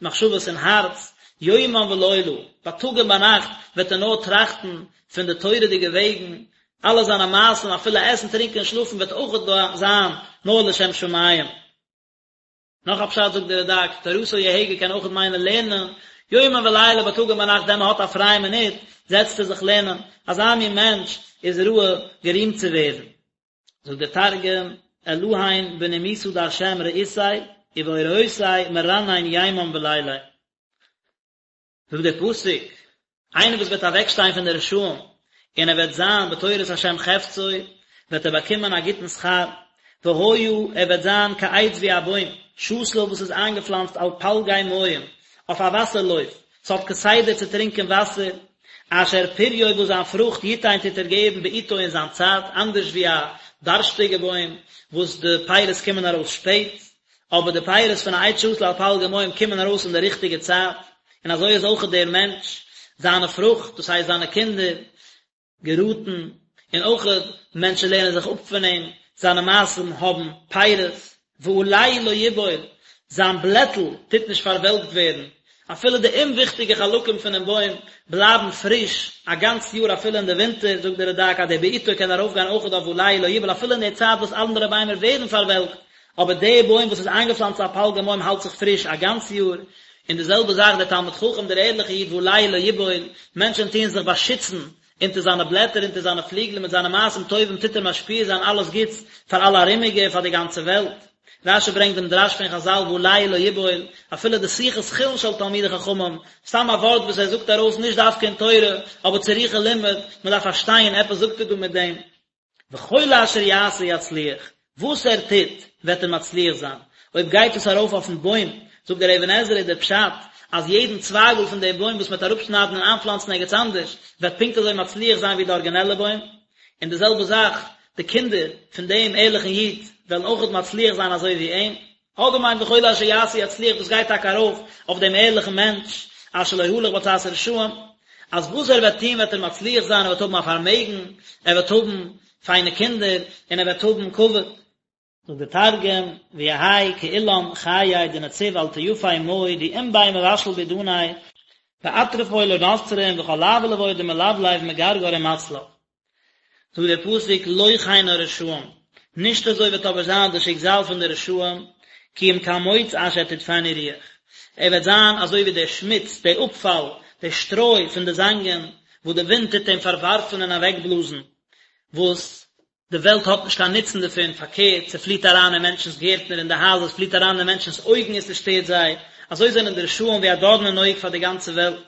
מחשבות אין הארץ, יומם ולילה, בייטאג און ביינאכט וועט ער נאר טראכטן פון די תורה'דיגע וועגן, אלע זיינע מעשים אפילו עסן טרינקען און שלאפן וועט אויך זיין נאר לשם שמים. נאך א פשט זאגט דער רד"ק, תורתו יהגה קען אויך מיינען לערנען, יומם ולילה בייטאג און ביינאכט ווען מען האט א פרייע מינוט זעצט ער זיך לערנען, אזא מין מענטש איז ראוי גערימט צו ווערן. זאגט דער תרגום, אלהין בנימוסא דהשם רעותיה, ובאורייתיה מרנן יימם וליליא. זאגט דער פסוק, איינער וואס וועט אוועקשטיין פון די רשעים, און ער וועט זיין בתורת השם חפצו, וועט ער באקומען א גוטן שכר, והיה, ער וועט זיין כעץ ווי א בוים, שתול וואס איז איינגעפלאנצט על פלגי מים, אויף א וואסער לויף, ס'האט כסדר צו טרינקען וואסער, אשר פריו וואס זיין פרוכט יתן טוט ער געבן בעתו אין זיין צייט, אנדערש ווי א דארשטיגע בוים וואס די פירות קומען ארויס שפעט, אבער די פירות פון א עץ שתול על פלגי מים קומען ארויס אין די ריכטיגע צייט, און אזוי איז אויך דער מענטש, זיינע פרוכט, דאס הייסט זיינע קינדער, געראטן, און אויך מענטשן לערנען זיך אפ פון אים, זיינע מעשים האבן פירות. ועלהו לא יבול, זיין בלעטל טוט נישט פארוועלקט ווערן, אפילו די אומוויכטיגע חלקים פונעם בוים בלייבן פריש א גאנץ יאר אפילו אין די ווינטער, זאגט דער רד"ק אז דער בעתו קען ארויפגיין אויכעט אויף ועלהו לא יבול אפילו אין די צייט וואס אנדערע ביימער ווערן פארוועלקט, אבער די בוים וואס איז איינגעפלאנצט על פלגי מים האלט זיך פריש א גאנץ יאר, און די זעלבע זאך דער תלמיד חכם דער ערליכער איד ועלהו לא יבול, מענטשען טוען זיך באשיצן אונטער זיינע בלעטער אונטער זיינע פליגלען מיט זיינע מעשים טובים טוט ער משפיע זיין אלעס גוטס פאר אלע ארומיגע און פאר די גאנצע וועלט. רש"י ברענגט דעם דרש פון חז"ל ועלהו לא יבול, אפילו די שיחת חולין של תלמידי חכמים, סתם א ווארט וואס ער זאגט ארויס נישט דווקא אין תורה, אבער צריכה לימוד, מען דארף פארשטיין עפעס זאגט ער דא מיט דעם. וכל אשר יעשה יצליח, וואס ער טוט וועט ער מצליח זיין, אויב גייט עס ארויף אויפן בוים, זאגט דער אבן עזרא איז דער פשט אז יעדן צווייגל פון דעם בוים וואס מען וועט אראפשניידן און איינפלאנצן ערגעץ אנדערש, וועט פונקט אזוי מצליח זיין ווי די ארגינעלע בוים, און די זעלבע זאך, די קינדער פון דעם ערליכן איד וועלן אויכעט מצליח זיין אזוי ווי אים. אדער מיינט וכל אשר יעשה יצליח דאס גייט טאקע ארויף אויף דעם ערליכן מענטש אשר לא הלך בעצת רשעים, אז וואס ער וועט טון וועט ער מצליח זיין, ער וועט האבן א פארמעגן, ער וועט האבן פיינע קינדער, און ער וועט האבן כבוד. זאגט דער תרגום, ויהי כאילן חיי דנציב על טייפי מאי די אין ביה מבשל בעידניה ואטרפוי לא נצרין וכל לאווא לוי דמלבלב מגרגר ומצלף. זאגט דער פסוק לא כן הרשעים, נישט אזוי וועט אבער זיין די שיקזאל פון די רשעים, כי אם כמוץ אשר תדפנו רוח, ער וועט זיין אזוי ווי דער שמוץ, דער אפפאל, דער שטרוי פון די זאנגען, וואס די ווינט טוט אים פארווארפן און אוועקבלאזן, וואס די וועלט האט נישט קיין נוצן דערפון, פארקערט, ס'פליט אריין אין מענטשנ'ס גערטנער און די הייזער, ס'פליט אריין אין מענטשנ'ס אויגן און ס'שטערט זיי, אזוי זענען די רשעים ווי א דארן אין אויג פאר די גאנצע וועלט.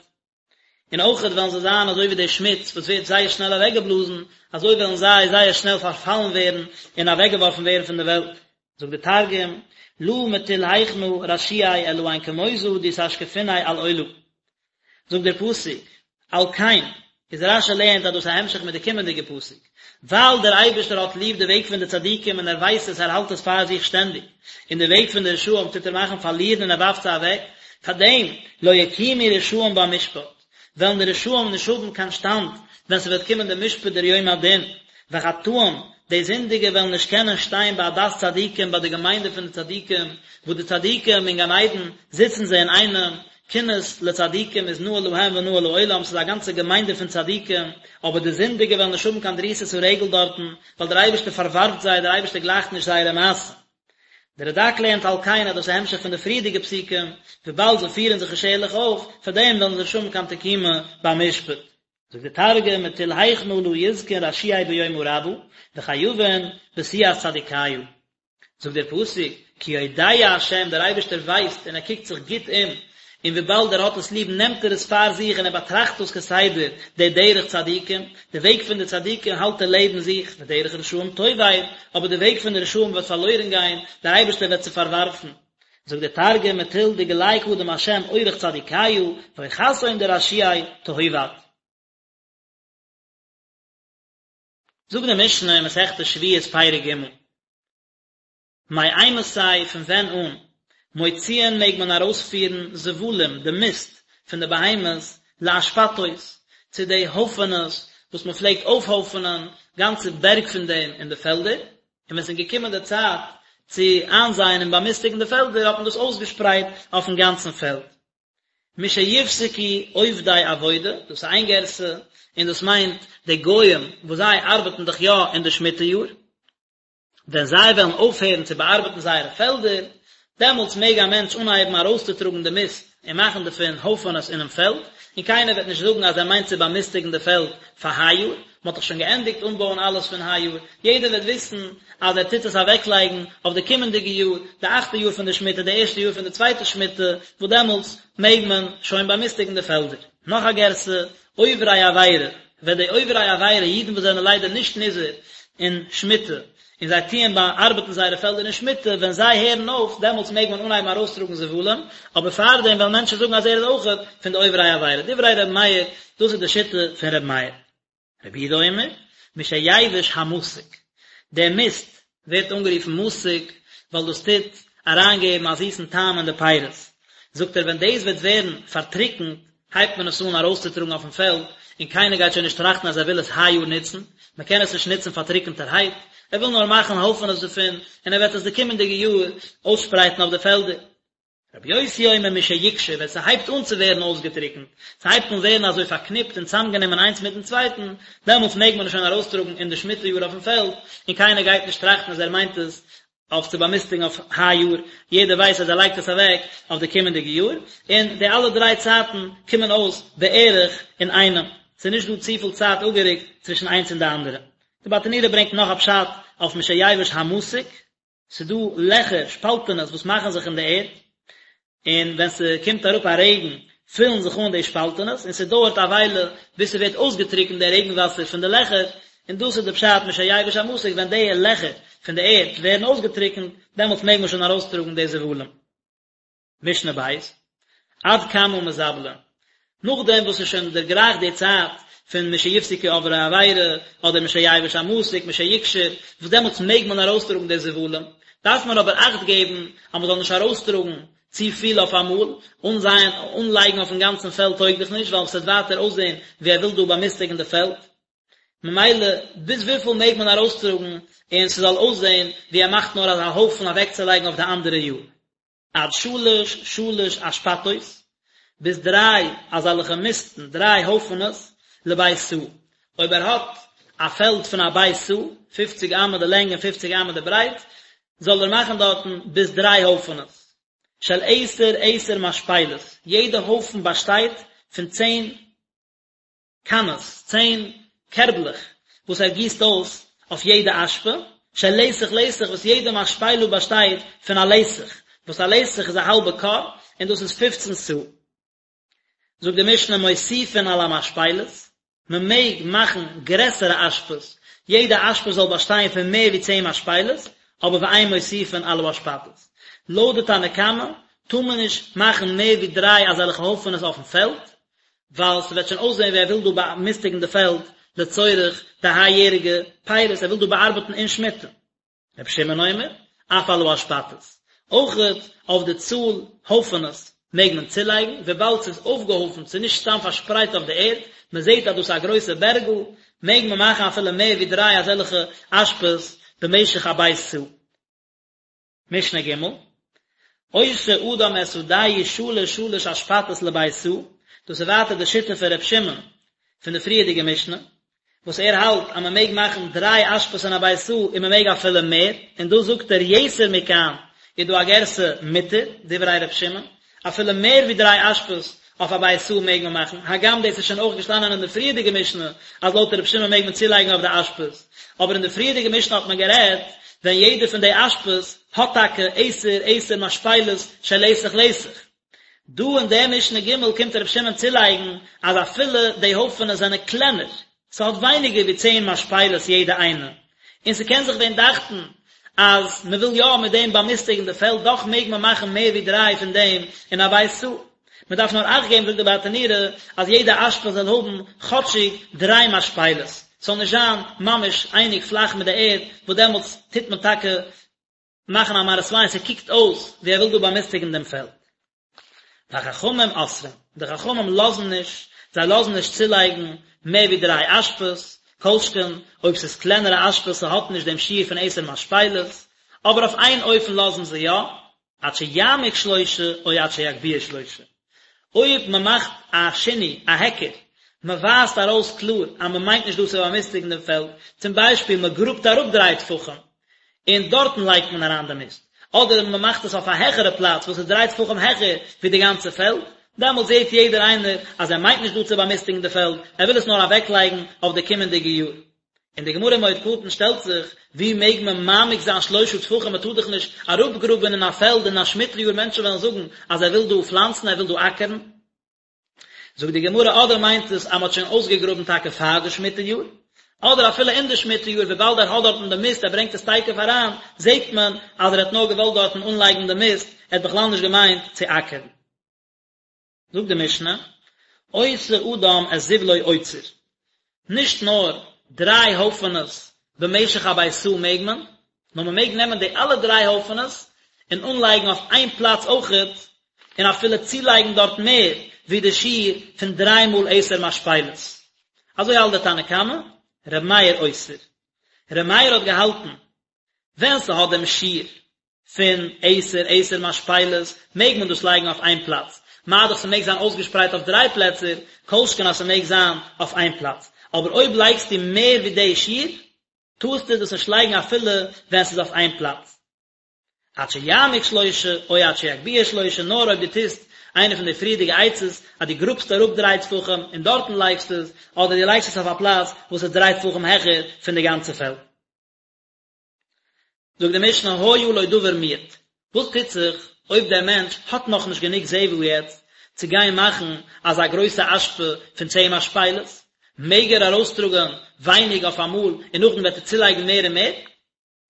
און אויכעט וועלן זיי זיין אזוי ווי די שמוץ וואס ווערט זייער שנעל אוועקגעבלאזן, אזוי וועלן זיי זייער שנעל פארפאלן ווערן און אוועקגעווארפן ווערן פון די וועלט. זאגט די תרגום, לא מטול היכנא רשיעי אלהין כמוזא די תשקפיניה עלעולא. זאגט דער פסוק, על כן, איז רש"י לערנט אז דאס איז א המשך מיט די קומענדיגע פסוק, ווייל דער אייבערשטער האט ליב די וועג פון די צדיקים און ער ווייסט עס, ער האלט עס פאר זיך שטענדיג, און די וועג פון די רשעים טוט ער מאכן פארלירן און ער ווארפט זיי אוועק, פאר דעם, לא יקומו רשעים במשפט, וועלן די רשעים נישט האבן קיין שטאנד ווען ס'וועט קומען דער משפט דער יום הדין, וחטאים, די זינדיגע וועלן נישט קענען שטיין בעדת צדיקים ביי די געמיינדע פון די צדיקים, וואו די צדיקים אין גן עדן זיצן זיי אינאיינעם, כינוס לצדיקים איז נאה להם ונאה לעולם, ס'איז א גאנצע געמיינדע פון צדיקים, אבער די זינדיגע וועלן נישט האבן קיין דריסת הרגל דארטן, ווייל דער אייבערשטער פארווארפט זיי, דער אייבערשטער גלייכט נישט זייערע מעשים. דער רד"ק לערנט על כן אז דאס איז א המשך פון די פריערדיגע פסוקים, וויבאלד זיי פירן זיך נישט ערליך אויף, פאר דעם וועלן זיי נישט האבן קיין תקומה ביים משפט. זאגט דער תרגום, מטול היכנא לא יזכון רשיעי ביומא רבא, וחייבין בסיעת צדיקיא. זאגט דער פסוק, כי יודע ה', דער אייבערשטער ווייסט און ער קוקט זיך גוט אום, און וויבאלד ער האט עס ליב נעמט ער עס פאר זיך און ער באטראכט דאס כסדר, די דרך צדיקים, די וועג פון די צדיקים האלט ער לעבן זיך, ודרך רשעים תאבד, אבער די וועג פון די רשעים וועט פארלוירן גיין, דער אייבערשטער וועט זיי פארווארפן. זאגט דער תרגום, מטול דגלי קדים ה' אורח צדיקיא, ואורחתהון דרשיעי תהובד. זאגט די משנה אין מסכת שביעית פרק ג', מאימתי פון ווען אן, מוציאין מעג מען ארויספירן זבלים, די מיסט פון די בהמות, לאשפתות, צו די הויפענעס וואס מען פלעגט אויפהויפענען גאנצע בערג פון דעם אין די פעלדער, און ווען עס איז געקומען די צייט צו איינזייען און באמיסטיגן די פעלדער האט מען דאס אויסגעשפרייט אויפן גאנצן פעלד. משיפסקו עובדי עבודה, דאס איז איין גירסא, און דאס מיינט די גוים וואס זיי ארבעטן דאך יא אין די שמיטה יאר, ווען זיי וועלן אויפהערן צו באארבעטן זייערע פעלדער, דעמאלטס מעג א מענטש אנהייבן ארויסצוטראגן די מיסט און מאכן דערפון הויפענעס אינעם פעלד, און קיינער וועט נישט זאגן אז ער מיינט צו באמיסטיגן די פעלד פאר היי יאר, מען האט דאך שוין געענדיגט אנבויען אלעס פון היי יאר, יעדער וועט וויסן אז ער טוט עס אוועקלייגן אויף די קומענדיגע יאר, די אכטע יאר פון די שמיטה, די ערשטע יאר פון די צווייטע שמיטה, וואס דעמאלטס מעג מען שוין באמיסטיגן די פעלדער. נאך א גירסא, עוברי עבירה, ווען די עוברי עבירה, אידן וואס זענען ליידער נישט נזהר אין שמיטה, און זיי טוען באארבעטן זייערע פעלדער אין שמיטה, ווען זיי הערן אויף, דעמאלטס מעג מען אנהייבן ארויסטראגן זבלים, אבער פארדעם וועלן מענטשן זאגן אז ער איז אויכעט פון די עוברי עבירה. דברי ר' מאיר, דאס איז די שיטה פון ר' מאיר. רבי יהודה אומר, משיבש המתוק, דער מיסט ווערט אנגערופן מתוק ווייל דאס טוט אריינגעבן א זיסן טעם אין די פירות, זאגט ער ווען דאס וועט ווערן פארטריקנט הייבט מען עס אן ארויסצוטראגן אויפן פעלד, און קיינער גייט שוין נישט טראכטן אז ער וויל עס היי יאר נוצן, מען קען עס נישט נוצן פארטריקנטערהייט. ער וויל נאר מאכן הויפענעס דערפון, און ער וועט עס די קומענדיגע יאר אויסשפרייטן אויף די פעלדער. רבי יוסי אומר משיקשור, ווען ס'הייבט אן צו ווערן אויסגעטריקנט, ס'הייבט אן ווערן אזוי פארקניפט און צאמגענומען איינס מיטן צווייטן, דעמאלטס מעג מען עס שוין ארויסטראגן אין די שמיטה יאר אויפן פעלד, און קיינער גייט נישט טראכטן אז ער מיינט עס אויף צו באמיסטיגן אויף היי יאר, יעדער ווייסט אז ער לייגט עס אוועק אויף די קומענדיגע יאר, און די אלע דריי צייטן קומען אויס בערך אינאיינעם, ס'איז נישט דא צופיל צייט אפגערוקט צווישן איינס און די אנדערע. די ברטנורא ברענגט נאך א פשט אויף משיבש המתק, ס'איז דא לעכער, שפאלטענעס וואס מאכן זיך אין די ערד, און ווען ס'קומט אראפ א רעגן פילן זיך אן די שפאלטענעס, און ס'דויערט א וויילע ביז ס'ווערט אויסגעטריקנט די רעגן וואסער פון די לעכער, און דאס איז די פשט משיבש המתק, ווען די לעכער פון די ערד ווערן אויסגעטריקנט, דעמאלטס מעג מען שוין ארויסטראגן די זבלים. משנה בית, עד כמה מזבלין, נאכדעם וואס ס'איז שוין דערגרייכט די צייט פון משיפסקו עוברי עבירה, אדער משיבש המתק, משיקשור, וואס דעמאלטס מעג מען ארויסטראגן די זבלים, דארף מען אבער אכט געבן אז מ'זאל נישט ארויסטראגן צו פיל אויף אמאל, אנזייען, אנלייגן אויפן גאנצן פעלד טויג דאך נישט, ווייל ס'וועט ווייטער אויסזען ווי ער וויל דא באמיסטיגן די פעלד. ממילא ביז וויפיל מעג מען ארויסטראגן און ס'זאל אויסזען ווי ער מאכט נאר אזא הויפן אוועקצולייגן אויף די אנדערע יאר? עד שלש שלש אשפתות, ביז דריי אזעלכע מיסטן, דריי הויפענעס, לבית סאה. אויב ער האט א פעלד פון א בית סאה, פופציג אמה די לענג און פופציג אמה די ברייט, זאל ער מאכן דארטן ביז דריי הויפענעס. של עשר עשר משפלות, יעדע הויפן באשטייט פון צען קאנעס, צען קערבלעך, וואס ער גיסט אויס אויף יעדע אשפה, של לתח לתח, וואס יעדע משפלה באשטייט פון א לתח, וואס א לתח איז א האלבע כור, און דאס איז פופצן סאה. זאגט די משנה מוסיפין על המשפלות, מען מעג מאכן גרעסערע אשפות, יעדע אשפה זאל באשטיין פון מער ווי צען משפלות, אבער ואין מוסיפין על האשפתות. לויט די תנא קמא טאר מען נישט מאכן מער ווי דריי אזעלכע הויפענעס אויפן פעלד, ווייל ס'וועט שוין אויסזען ווי ער וויל דא באמיסטיגן די פעלד לצורך די היי יעריגע פירות, ער וויל דא באארבעטן אין שמיטה. רבי שמעון אומר, אף על האשפתות. אויכעט אויף די צאל הויפענעס מעג מען צולייגן, וויבאלד ס'איז אויפגעהויפנט, ס'איז נישט סתם פארשפרייט אויף די ערד, מען זעט אז דאס איז א גרויסע בערגל, מעג מען מאכן אפילו מער ווי דריי אזעלכע אשפות במשך א בית סאה. משנה ג', עושה אדם את שדהו שלש שלש אשפתות לבית סאה, דאס איז ווייטער די שיטה פון ר' שמעון פון די פריערדיגע משנה, וואס ער האלט אז מען מעג מאכן דריי אשפות אין א בית סאה און מען מעג אפילו מער, און דא זאגט ער יתר מכאן איז דא א גירסא מותר, דברי ר' שמעון, אפילו מער ווי דריי אשפות אויף א בית סאה מעג מען מאכן, הגם דאס איז שוין אויך געשטאנען אין די פריערדיגע משנה אז לויט ר' שמעון מעג מען צולייגן אויף די אשפות, אבער אין די פריערדיגע משנה האט מען גערעדט ווען יעדע פון די אשפות האט טאקע עשר עשר משפלות של לתח לתח. דא אין די משנה ג' קומט ר' שמעון צולייגן אז אפילו די הויפענעס זענען קלענער, ס'האט ווייניגער ווי צען משפלות יעדע איינע, און ס'קען זיך ווען דאכטן אז מ'וויל יא מיט דעם באמיסטיגן די פעלד, דאך מעג מען מאכן מער ווי דריי פון דעם אין א בית סאה. מ'דארף נאר אכט געבן זאגט די ברטנורא אז יעדע אשפה זאל האבן כאטשיג דריי משפלות, ס'זאל נישט זיין ממש אייניג פלאך מיט די ערד, וואס דעמאלטס טוט מען טאקע מאכן א מראית עין, ס'קוקט אויס ווי ער וויל דא באמיסטיגן דעם פעלד. וחכמים אוסרים, די חכמים לאזן נישט, זיי לאזן נישט צולייגן מער ווי דריי אשפות, כל שכן אויב ס'איז קלענערע אשפות ס'האט נישט דעם שיעור פון עשר משפלות, אבער אויף איין אופן לאזן זיי יא, עד שיעמיק שלושה או עד שיגביה שלושה. אויב מען מאכט א שינוי, א היכר, מען ווייזט ארויס קלאר אז מען מיינט נישט דא צו באמיסטיגן דעם פעלד, צום ביישפיל מען גראבט אראפ דריי טפחים און דארטן לייגט מען אריין די מיסט, אדער מען מאכט עס אויף א העכערע פלאץ וואס איז דריי טפחים העכער ווי די גאנצע פעלד, דעמאלט זעט יעדער איינער אז ער מיינט נישט דא צו באמיסטיגן די פעלד, ער וויל עס נאר אוועקלייגן אויף די קומענדיגע יאר. און די גמרא אין מועד קטן שטעלט זיך, ווי מעג מען מעמיק זיין שלושה טפחים, מען טאר דאך נישט אראפגראבען אין א פעלד אין א שמיטה יאר מענטשן וועלן זאגן אז ער וויל דא פלאנצן ער וויל דא אקערן. זאגט די גמרא אדער מיינט עס אז מען האט שוין אויסגעגראבן טאקע פאר די שמיטה יאר, אדער אפילו אין די שמיטה יאר וויבאלד ער האט דארטן די מיסט ער ברענגט עס תיכף אריין, זעט מען אז ער האט נאר געוואלט דארטן אנלייגן די מיסט, ער האט בכלל נישט געמיינט צו אקערן. זאגט די משנה, עושה אדם את זבלו אוצר, נישט נאר דריי הויפענעס במשך א בית סאה מעג מען, נאר מען מעג נעמען די אלע דריי הויפענעס און אנלייגן אויף איין פלאץ אויכעט, און אפילו צולייגן דארט מער ווי די שיעור פון דריי מאל עשר משפלות. אזוי האלט דער תנא קמא, ר' מאיר אוסר. ר' מאיר האט געהאלטן, ווען ס'האט דעם שיעור פון עשר עשר משפלות מעג מען דאס לייגן אויף איין פלאץ, מה דאך ס'מעג זיין אויסגעשפרייט אויף דריי פלעצער, כל שכן אז ס'מעג זיין אויף איין פלאץ. אבער אויב לייגסטו מער ווי די שיעור, טארסטו דאס נישט לייגן אפילו ווען ס'איז אויף איין פלאץ. עד שיעמיק שלושה, או עד שיגביה שלושה, נאר אויב דו טוסט איינע פון די פריערדיגע עצות, אז דו גראבסט אראפ דריי טפחים און דארטן לייגסט עס, אדער דו לייגסט עס אויף א פלאץ וואס איז דריי טפחים העכער פון די גאנצע פעלד. זאגט די משנה היה לו דבר מועט, וואס טוט זיך אויב דער מענטש האט נאכנישט גענוג זבל יעצט צו גיין מאכן אזא גרויסע אשפה פון צען משפלות, מעג ער ארויסטראגען ווייניג אויף אמאל און נאכדעם וועט ער צולייגן מער און מער?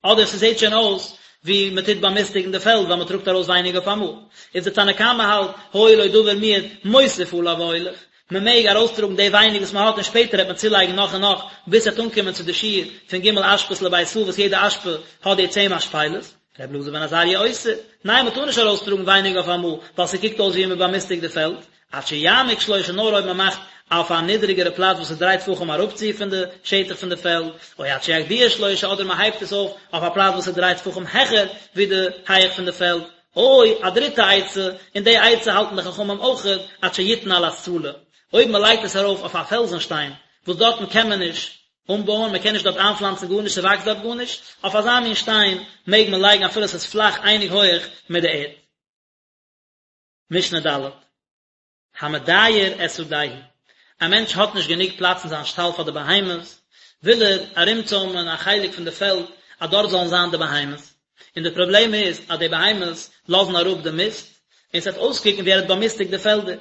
אדער ס'זעט שוין אויס ווי מ'טוט באמיסטיגן די פעלד ווייל מ'טראגט ארויס ווייניג אויף אמאל. איז די תנא קמא האלט היה לו דבר מועט מוסיף עליו והולך, מ'מעג ארויסטראגן די ווייניג וואס מ'האט און שפעטער וועט מען צולייגן נאך און נאך ביז ס'וועט אנקומען צו די שיעור פון ג' אשפות לבית סאה וואס יעדע אשפה האט די צען משפלות. ר' אלעזר בן עזריה אוסר, ניין מ'טאר נישט ארויסטראגן ווייניג אויף אמאל ווייל ס'קוקט אויס ווי מ'באמיסטיגט די פעלד, עד שיעמיק שלושה נאר אויב מען מאכט אויף א נידריגערע פלאץ וואס איז דריי טפחים אראפצו פון די שטח פון די פעלד, או עד שיגביה שלושה אדער מען הייבט עס אויף אויף א פלאץ וואס איז דריי טפחים העכער ווי די הייעך פון די פעלד, או א דריטע עצה, און די עצה האלטן די חכמים אויכעט, עד שיתן על הסלע, אויב מען לייגט עס ארויף אויף א פעלזן שטיין וואס דארטן קען מען נישט אנבויען, מען קען נישט דארט איינפלאנצן גארנישט, ס'וואקסט דארט גארנישט, אויף אזא מין שטיין מעג מען לייגן אפילו עס איז פלאך אייניג הויעך מיט די ערד. משנה ד', המדייר את שדהו, א מענטש האט נישט גענוג פלאץ אין זיין שטאל פאר די בהמות, וויל ער ארומצוימען א חלק פון די פעלד אז דארט זאלן זיין די בהמות, און די פראבלעם איז אז די בהמות לאזן אראפ די מיסט, און ס'וועט אויסקוקן ווי ער האט באמיסטיגט די פעלדער.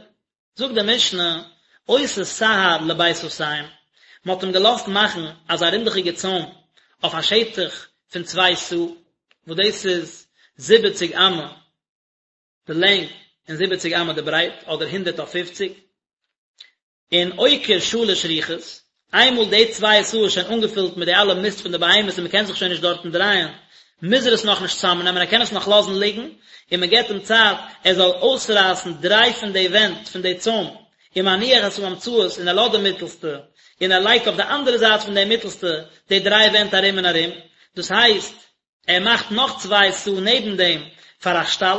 זאגט די משנה, עושה סהר לבית סאתים, מען האט אים געלאזט מאכן אזא רינדעכיגע צוים אויף א שטח פון צוויי סאה, וואס דאס איז זיבעציג אמה, די לענג און זיבעציג אמה די ברייט, אדער הונדערט אויף פופציג, און עוקר שלש רוחות, איינמאל די צוויי סאה איז שוין אנגעפילט מיט די אלע מיסט פון די בהמות און מען קען זיך שוין נישט דארטן דרייען, מוז ער עס נאכנישט צוזאמנעמען, ער קען עס נאך לאזן ליגן, און מען געבט אים צייט ער זאל אויסרייסן דריי פון די ווענט פון די צוים, ומניח את האמצעית און ער לאזט די מיטלסטע, און ער לייגט אויף די אנדערע זייט פון די מיטלסטע די דריי ווענט ארום און ארום, דאס הייסט, ער מאכט נאך צוויי סאה נעבן דעם פאר א שטאל,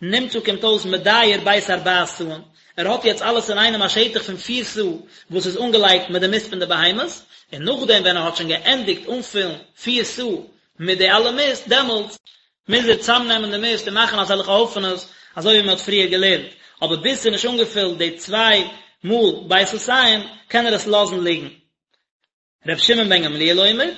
נמצא קומט אויס מדייר בית ארבע סאין, ער האט יעצט אלעס אינאיינעם א שטח פון פיר סאה וואס איז אנגעלייגט מיט די מיסט פון די בהמות, און נאכדעם ווען ער האט שוין געענדיגט אנפילן פיר סאה מיט די אלע מיסט, דעמאלטס מוז ער צאמנעמען די מיסט און מאכן אזעלכע הויפענעס אזוי ווי מען האט פריער געלערנט, אבער ביז ס'איז נישט אנגעפילט די צוויי מאל בית סאתים קען ער עס לאזן ליגן. ר' שמעון בן גמליאל אומר,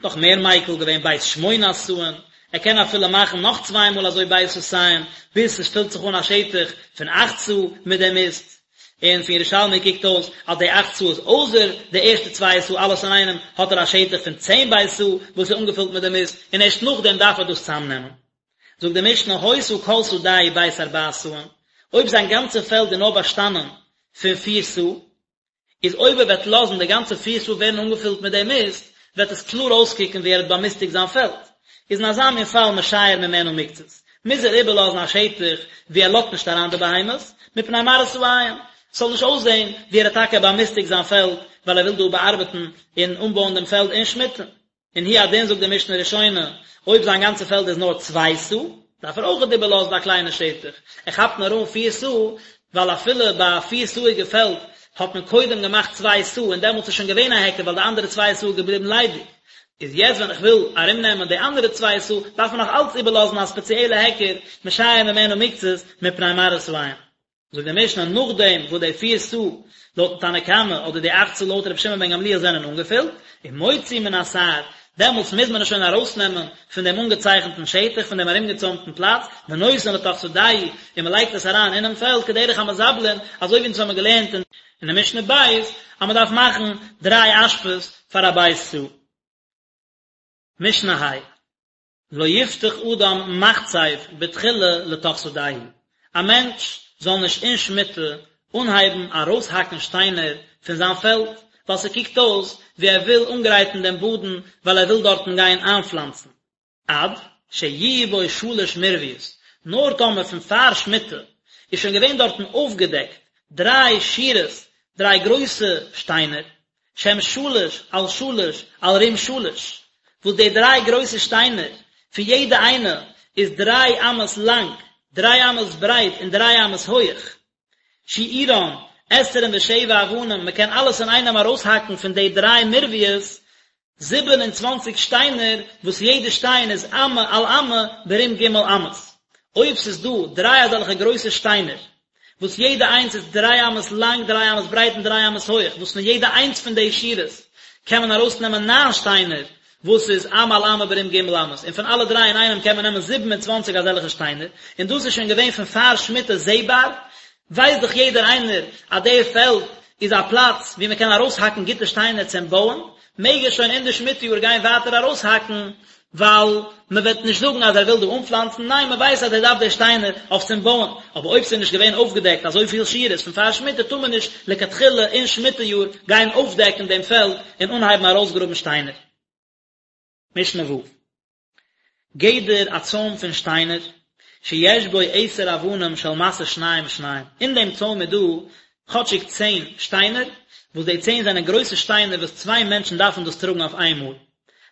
נאך מער מיקל געווען בית שמונה סאין, ער קען אפילו מאכן נאך צוויי מאל אזוי בית סאתים, ביז עס פילט זיך אן א שטח פון אכט סאה מיט די מיסט, און פון ירושלמי קוקט אויס אז די אכט סאה איז אויסער די ערשטע צוויי סאה אלעס אינאיינעם האט ער א שטח פון צען בית סאה וואס איז אנגעפילט מיט די מיסט, און ערשט נאכדעם דארף ער דאס צאמנעמען. זאגט די משנה היתה כל שדהו בית ארבע סאין, אויב זיין גאנצע פעלד איז נאר באשטאנען פון פיר סאה, איז אויב ער וועט לאזן די גאנצע פיר סאה ווערן אנגעפילט מיט די מיסט, וועט עס קלאר אויסקוקן ווי ער האט באמיסטיגט זיין פעלד. איז אין אזא מין פאל משייר ממנה מקצת, מוז ער איבערלאזן א שטח וואו ער לאזט נישט אריין די בהמות, מפני מראית העין, ס'זאל נישט אויסזען ווי ער האט טאקע באמיסטיגט זיין פעלד ווייל ער וויל דא באארבעטן און אנבויען דעם פעלד אין שמיטה. און הוא הדין זאגט די משנה ראשונה, אויב זיין גאנצע פעלד איז נאר צוויי סאה, דארף ער אויכעט איבערלאזן א קליינע שטח, ער כאפט נאר אן פיר סאה, ווייל אפילו ביי א פיר סאה'יגע פעלד האט מען קודם געמאכט צוויי סאה און דעמאלטס איז שוין געווען א היכר ווייל די אנדערע צוויי סאה איז געבליבן ליידיג, איז יעצט ווען איך וויל ארומנעמען די אנדערע צוויי סאה דארף מען נאך אלץ איבערלאזן א ספעציעלע היכר, משייר ממנה מקצת מפני מראית העין. זאגט די משנה נאכדעם וואס די פיר סאה לויטן תנא קמא אדער די אכט סאה לויט רבי שמעון בן גמליאל זענען אנגעפילט, ומוציא מן הסהר, דעמאלטס מוז מען עס שוין ארויסנעמען פון דעם אנגעצייכנטן שטח, פון דעם ארומגעצוימטן פלאץ, ונותן לתוך שדהו, און מען לייגט עס אריין אינעם פעלד כדרך המזבלין, אזוי ווי אונז האבן געלערנט אין די משנה ב' אז מען דארף מאכן דריי אשפות פאר א בית סאה. משנה ה'. לא יפתח אדם מחצב בתחילה לתוך שדהו, א מענטש זאל נישט אין שמיטה אנהייבן ארויסהאקן שטיינער פון זיין פעלד, ווייל ס'קוקט אויס ווי ער וויל אנגרייטן דעם באדן ווייל ער וויל דארטן גיין איינפלאנצן. עד שיהיו בו שלש מרביות, נאר טאמער פון פאר שמיטה איז שוין געווען דארטן אויפגעדעקט דריי שורות, דריי גרויסע שטיינער, שהם שלש על שלש על רום שלש, וואס די דריי גרויסע שטיינער, פון יעדע איינע איז דריי אמות לאנג, דריי אמות ברייט און דריי אמות הויעך, שיעורן עשרים ושבע אבנים, מען קען אלעס אינאיינעם ארויסהאקן פון די דריי מורביות, 27 שטיינער, וואס יעדע שטיין איז אמה על אמה ברום ג' אמות. אויב ס'איז דא דריי אזעלכע גרויסע שטיינער, וואס יעדע איינס איז דריי אמות לאנג, דריי אמות ברייט און דריי אמות הויך, וואס פון יעדע איינס פון די שורות קען מען ארויסנעמען ניין שטיינער, וואס איז אמה על אמה ברום ג' אמות, און פון אלע דריי אינאיינעם קען מען נעמען 27 אזעלכע שטיינער, און דאס איז שוין געווען פון פאר שמיטה זעבאר, ווייסט דאך יעדער איינער אז די פעלד איז א פלאץ וואו מען קען ארויסהאקן גוטע שטיינער צום בויען, מעג ער שוין אין די שמיטה יאר גיין ווייטער ארויסהאקן, ווייל מען וועט נישט זאגן אז ער וויל דא אנפלאנצן, ניין מען ווייסט אז ער דארף די שטיינער אויף צום בויען, אבער אויב ס'איז נישט געווען אויפגעדעקט אזויפיל שורות פון פאר שמיטה טאר מען נישט לכתחילה אין שמיטה יאר גיין אויפדעקן דעם פעלד און אנהייבן ארויסגראבן שטיינער. משנה ו'. גדר א צוים פון שטיינער, שיש בו עשר אבנים של משא שניים שניים, אין דעם צוים איז דא כאטשיג צען שטיינער, וואס די צען זענען גרויסע שטיינער וואס צוויי מענטשן דארפן דאס טראגן אויף איינמאל,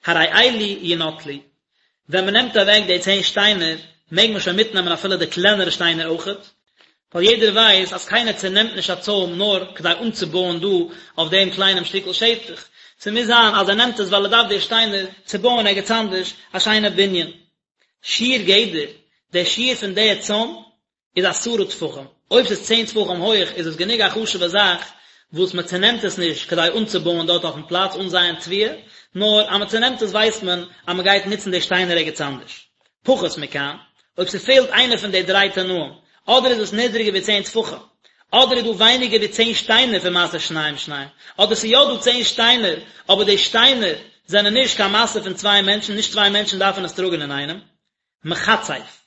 הרי אלו ינטלו, ווען מען נעמט אוועק די צען שטיינער, מעג מען שוין מיטנעמען אפילו די קלענערע שטיינער אויכעט, ווייל יעדער ווייסט אז קיינער צענעמט נישט א צוים נאר כדי אנצובויען דא אויף דעם קליינעם שטיקל שטח, ס'מוז זיין אז ער נעמט עס ווייל ער דארף די שטיינער צו בויען ערגעץ אנדערש א שיינע בנין. שיעור גדר, דער שיעור פון די צוים איז עשרה טפחים, אויב ס'איז צען טפחים הויעך איז עס גענוג א חשוב'ע זאך וואס מען צענעמט עס נישט כדי אנצובויען דארט אויפן פלאץ אנזייען תבואה, נאר אז מען צענעמט עס ווייסט מען אז מען גייט נוצן די שטיינער ערגעץ אנדערש. פחות מכאן, אויב ס'פעלט איינע פון די דריי תנאים, אדער איז עס נידריגער ווי צען טפחים, אדער איז דא ווייניגער ווי צען שטיינער פון משא שניים שניים, אדער ס'איז יא דא צען שטיינער, אבער די שטיינער זענען נישט קיין משא פון צוויי מענטשן, נישט צוויי מענטשן דארפן עס טראגן אינאיינעם. מחצף.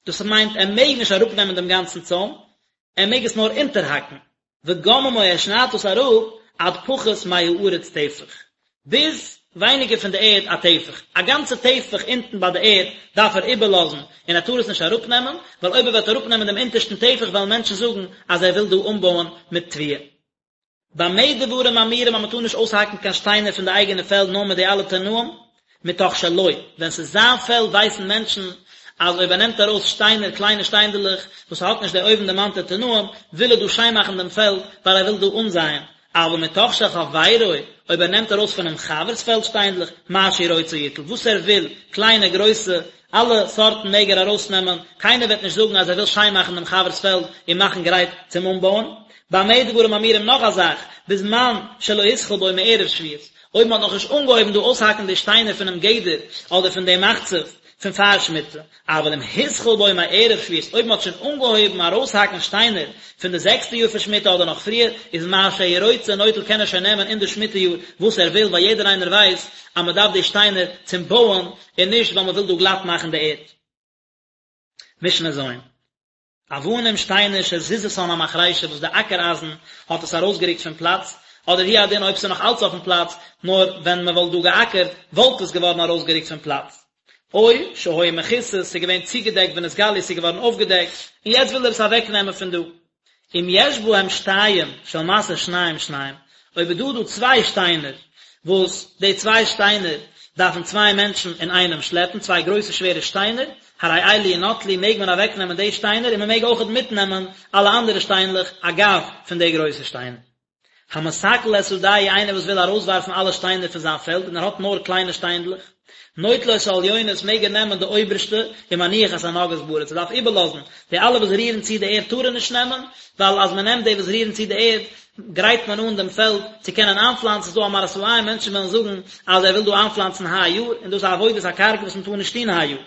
דאס מיינט ער מעג נישט אראפנעמען דעם גאנצן צוים, ער מעג עס נאר אונטערהאקן, וגוממו ער שניידט דאס אראפ עד פחות מהארץ טפח, ביז ווייניגער פון די ערד א טפח, א גאנצע טפח אונטן ביי די ערד דארף ער איבערלאזן און ער טאר עס נישט אראפנעמען, ווייל אויב ער וועט אראפנעמען דעם אונטערשטן טפח וועלן מענטשן זאגן אז ער וויל דא אנבויען מיט תבואה. במה דברים אמורים אז מען טאר נישט אויסהאקן קיין שטיינער פון די אייגענע פעלד נאר מיט די אלע תנאים, מתוך שלו, ווען ס'איז זיין פעלד ווייסן מענטשן אז אויב ער נעמט ארויס שטיינער, קליינע שטיינדעלעך, וואס האט נישט די אויבנדערמאנטע תנאים, וויל ער דא שיין מאכן דעם פעלד, ווייל ער וויל דא אנזייען, אבל מתוך של חברו, אויב ער נעמט ארויס פונעם חבר'ס פעלד שטיינדלעך, מה שהוא רוצה יטול, וואס ער וויל, קליינע, גרויסע, אלע סארטן מעג ער ארויסנעמען, קיינער וועט נישט זאגן אז ער וויל שיין מאכן דעם חבר'ס פעלד און מאכן גרייט צום אנבויען. במה דברים אמורים נאך א זאך, בזמן שלא התחיל בו מערב שביעית, אויב מען האט נאכנישט אנגעהויבן דא אויסהאקן די שטיינער פונעם גדר אדער פון דעם מחצף פון פאר שמיטה, אבל אם התחיל בו מערב שביעית, אויב מען האט שוין אנגעהויבן ארויסהאקן שטיינער פון די זעקסטע יאר פון שמיטה אדער נאך פריער, איז מה שהוא רוצה נוטל קען ער שוין נעמען אין די שמיטה יאר וואס ער וויל ווייל יעדער איינער ווייסט אז מען דארף די שטיינער צום בויען און נישט ווייל מען וויל דא גלאט מאכן די ערד. משנה ז'. אבנים שטיינער שזיזתן המחרישה וואס די אקער אייזן האט עס ארויסגערוקט פון פלאץ, אדער הוא הדין אויב ס'איז נאך אלץ אויפן פלאץ, נאר ווען מען וואלט דא געאקערט וואלט עס געווארן ארויסגערוקט פון פלאץ. או שהיו מכוסות, ס'איז געווען צוגעדעקט ונתגלו, ס'איז געווארן אויפגעדעקט, און יעצט וויל ער עס אוועקנעמען פון דא. אם יש בהם שתיים של משא שניים שניים, אויב איז דא דא צוויי שטיינער, וואס די צוויי שטיינער דארפן צוויי מענטשן אינאיינעם שלעפן, צוויי גרויסע שווערע שטיינער, הרי אלו ינטלו מעג מען אוועקנעמען די שטיינער און מען מעג אויכעט מיטנעמען אלע אנדערע שטיינלעך אגב פון די גרויסע שטיינער. המסקל את שדהו איינער וואס וויל ארויסווארפן אלע שטיינער פון זיין פעלד און ער האט נאר קליינע שטיינדלעך, נוטל את העליונות מעג ער נעמען די אויבערשטע ומניח את הנוגעות בארץ ער דארף איבערלאזן די אלע וואס רירן צו די ערד טאר ער נישט נעמען ווייל אז מען נעמט די וואס רירן צו די ערד גרייט מען אן דעם פעלד צו קענען איינפלאנצן ס'איז דא א מראית עין מענטשן וועלן זאגן אז ער וויל דא איינפלאנצן היי יאר און דאס איז עבודת הקרקע וואס מען טאר נישט טון היי יאר.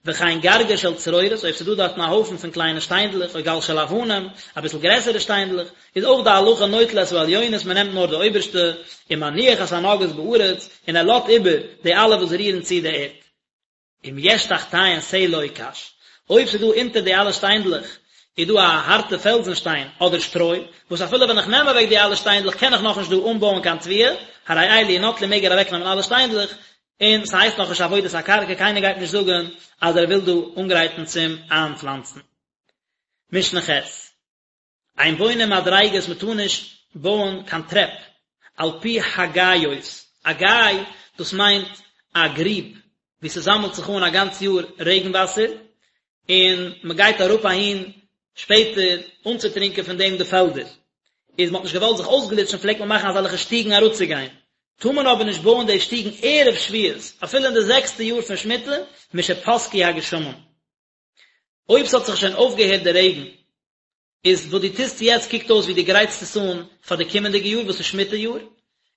וכן גרגר של צרורות, אויב ס'איז דא דארטן א הויפן פון קליינע שטיינדלעך, או גל של אבנים, אביסל גרעסערע שטיינדלעך, איז אויך די הלכה נוטל את העליונות, מען נעמט נאר די אויבערשטע, ומניח את הנוגעות בארץ, און ער לאזט איבער די אלע וואס רירן צו די ערד. אם יש תחתיהן סלע או קש, אויב ס'איז דא אונטער די אלע שטיינדלעך איז דא א הארטע פעלזן שטיין אדער שטרוי, וואס אפילו ווען איך נעם אוועק די אלע שטיינדלעך קען איך נאכנישט דא אנבויען קיין תבואה, הרי אלו ינטלו מעג ער אוועקנעמען אלע שטיינדלעך, און ס'הייסט נאכנישט עבודת הקרקע, קיינער גייט נישט זאגן אז ער וויל דא אנגרייטן צום איינפלאנצן. משנה ח', אין בונים מדריגות מ'טאר נישט בויען קיין טרעפ על פי הגאיות, א גיא דאס מיינט א גריב וואו ס'זאמלט זיך אן א גאנץ יאר רעגן וואסער, און מ'גייט אראפ אהין שפעטער אנצוטרינקען פון דעם די פעלדער, איז מ'האט נישט געוואלט זיך אויסגליטשן פלעגט מען מאכן אזעלכע שטיגן אראפצוגיין, טאר מען אבער נישט בויען די שטיגן ערב שביעית, אפילו אין די זעקסטע יאר פון שמיטה, משפסקו הגשמים. אויב ס'האט זיך שוין אויפגעהערט די רעגן, איז וואס דו טוסט יעצט קוקט אויס ווי דו גרייטסט עס אן פאר די קומענדיגע יאר וואס איז שמיטה יאר,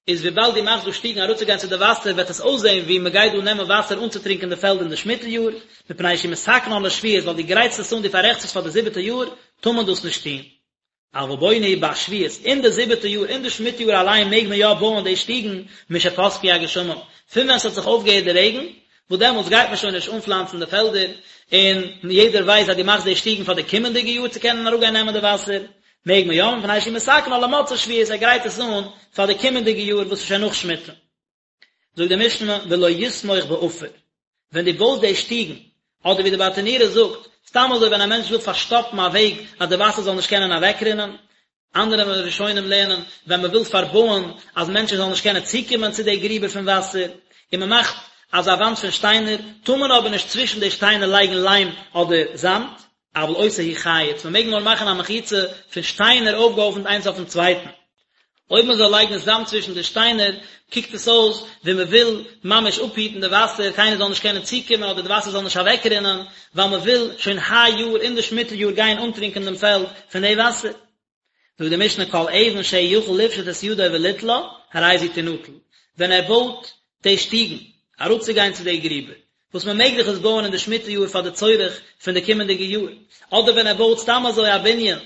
איז וויבאלד דו מאכסט דא שטיגן אראפצוגיין צו די וואסער וועט עס אויסזען ווי מ'גייט דא נעמען וואסער אנצוטרינקען די פעלד אין די שמיטה יאר, מפני שהוא מתקנן לשביעית ווייל דו גרייטסט עס אן דו פאררעכטסט עס פאר די זיבעטע יאר, טאר מען דאס נישט טון. אבל בונה הוא בשביעית, אין די זיבעטע יאר, אין די שמיטה יאר אליין מעג מען יא בויען די שטיגן, משפסקו הגשמים, פון ווען ס'האט זיך אויפגעהערט די רעגן, וואס דעמאלטס גייט מען שוין נישט אנפלאנצן די פעלדער, און יעדער ווייסט אז דו מאכסט די שטיגן פאר די קומענדיגע יאר צו קענען אראפגיין נעמען די וואסער, מעג מען יא, מפני שהוא מתקנן למוצאי שביעית, ער גרייט עס אן פאר די קומענדיגע יאר וואס איז שוין נאך שמיטה. זאגט די משנה ולא יסמוך בעפר, ווען דו בויסט די שטיגן, אדער ווי די ברטנורא זאגט, סתם אזוי ווען א מענטש וויל פארשטאפן א וועג אז די וואסער זאל נישט קענען אוועקרינען, אנדערע ראשונים לערנען, ווען מען וויל פארבויען אז מענטשן זאלן נישט קענען צוקומען צו די גריבער פון וואסער, און מען מאכט אזא וואנט פון שטיינער, טאר מען אבער נישט צווישן די שטיינער לייגן ליים אדער זאמד, אבל עושה הוא חיץ, מען מעג נאר מאכן א מחיצה פון שטיינער אויפגעהויפנט איינס אויפן צווייטן. אויב מען זאל לייגן זאמד צווישן די שטיינער, קוקט עס אויס ווי מען וויל ממש אפהיטן די וואסער, קיינער זאל נישט קענען צוקומען אדער די וואסער זאל נישט אוועקרינען, ווייל מען וויל שוין היי יאר אין די שמיטה יאר גיין אנטרינקען דעם פעלד פון די וואסער. זאגט די משנה כל אבן שהוא יכול לפשוט את ידו וליטלה, הרי זו תנטל, ווען ער בויט די שטיגן אראפצוגיין צו די גריבער, וואס מען מעג דאך עס בויען אין די שמיטה יאר פאר די צורך פון די קומענדיגע יאר, אדער ווען ער בויט סתם אזוי א בנין,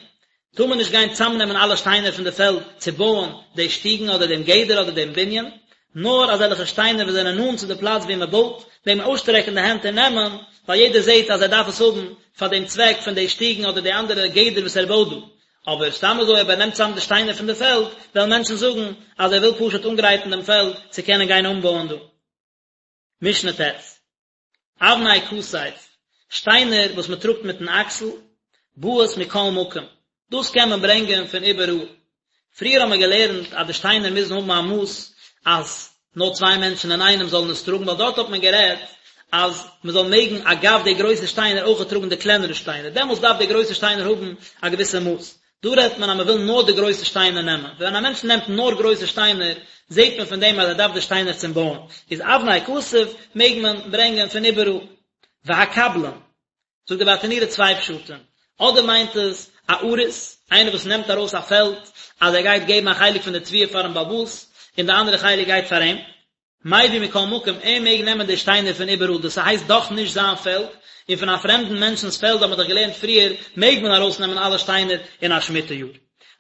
טאר מען נישט גיין צאמנעמען אלע שטיינער פון די פעלד צו בויען די שטיגן אדער דעם גדר אדער דעם בנין, נאר אזעלכע שטיינער וואס זענען נאנט צו די פלאץ וואו מען בויט, מעג מען אויסשטרעקן די הענט און נעמען, ווייל יעדער זעט אז ער דארף עס האבן פאר דעם צוועק פון די שטיגן אדער די אנדערע גדר וואס ער בויט דא. אבער סתם אזוי אויב ער נעמט צאם די שטיינער פון די פעלד, וועלן מענטשן זאגן אז ער וויל פשוט אנגרייטן דעם פעלד צו קענען גיין אנבויען דא. משנה ט', אבני כתף, שטיינער וואס מען טראגט מיטן אקסל, באות מכל מקום, דאס קען מען ברענגען פון איבעראל. פריער האבן מיר געלערנט אז די שטיינער מוזן האבן א מאס אז נאר צוויי מענטשן אינאיינעם זאלן עס טראגן, ווייל דארט האט מען גערעדט אז מען זאל מעגן אגב די גרויסע שטיינער אויך טראגן די קלענערע שטיינער, דעמאלטס דארף די גרויסע שטיינער האבן א געוויסע מאס. דא רעדט מען אז מען וויל נאר די גרויסע שטיינער נעמען, ווען א מענטש נעמט נאר גרויסע שטיינער זעט מען פון דעם אז ער דארף די שטיינער צום בויען, איז אבני כתף מעג מען ברענגען פון איבעראל. והקבלן, זאגט די ברטנורא צוויי פשטים, אדער מיינט עס א אריס, איינער וואס נעמט ארויס א פעלד אז ער גייט געבן א חלק פון די תבואה פארן בעל הבית, און די אנדערע חלק גייט פאר אים, מביא מכל מקום, ער מעג נעמען די שטיינער פון איבעראל, דאס הייסט דאך נישט זיין פעלד, און פון א פרעמדן מענטשנ'ס פעלד האט מען דאך געלערנט פריער, מעג מען ארויסנעמען אלע שטיינער אין א שמיטה יאר.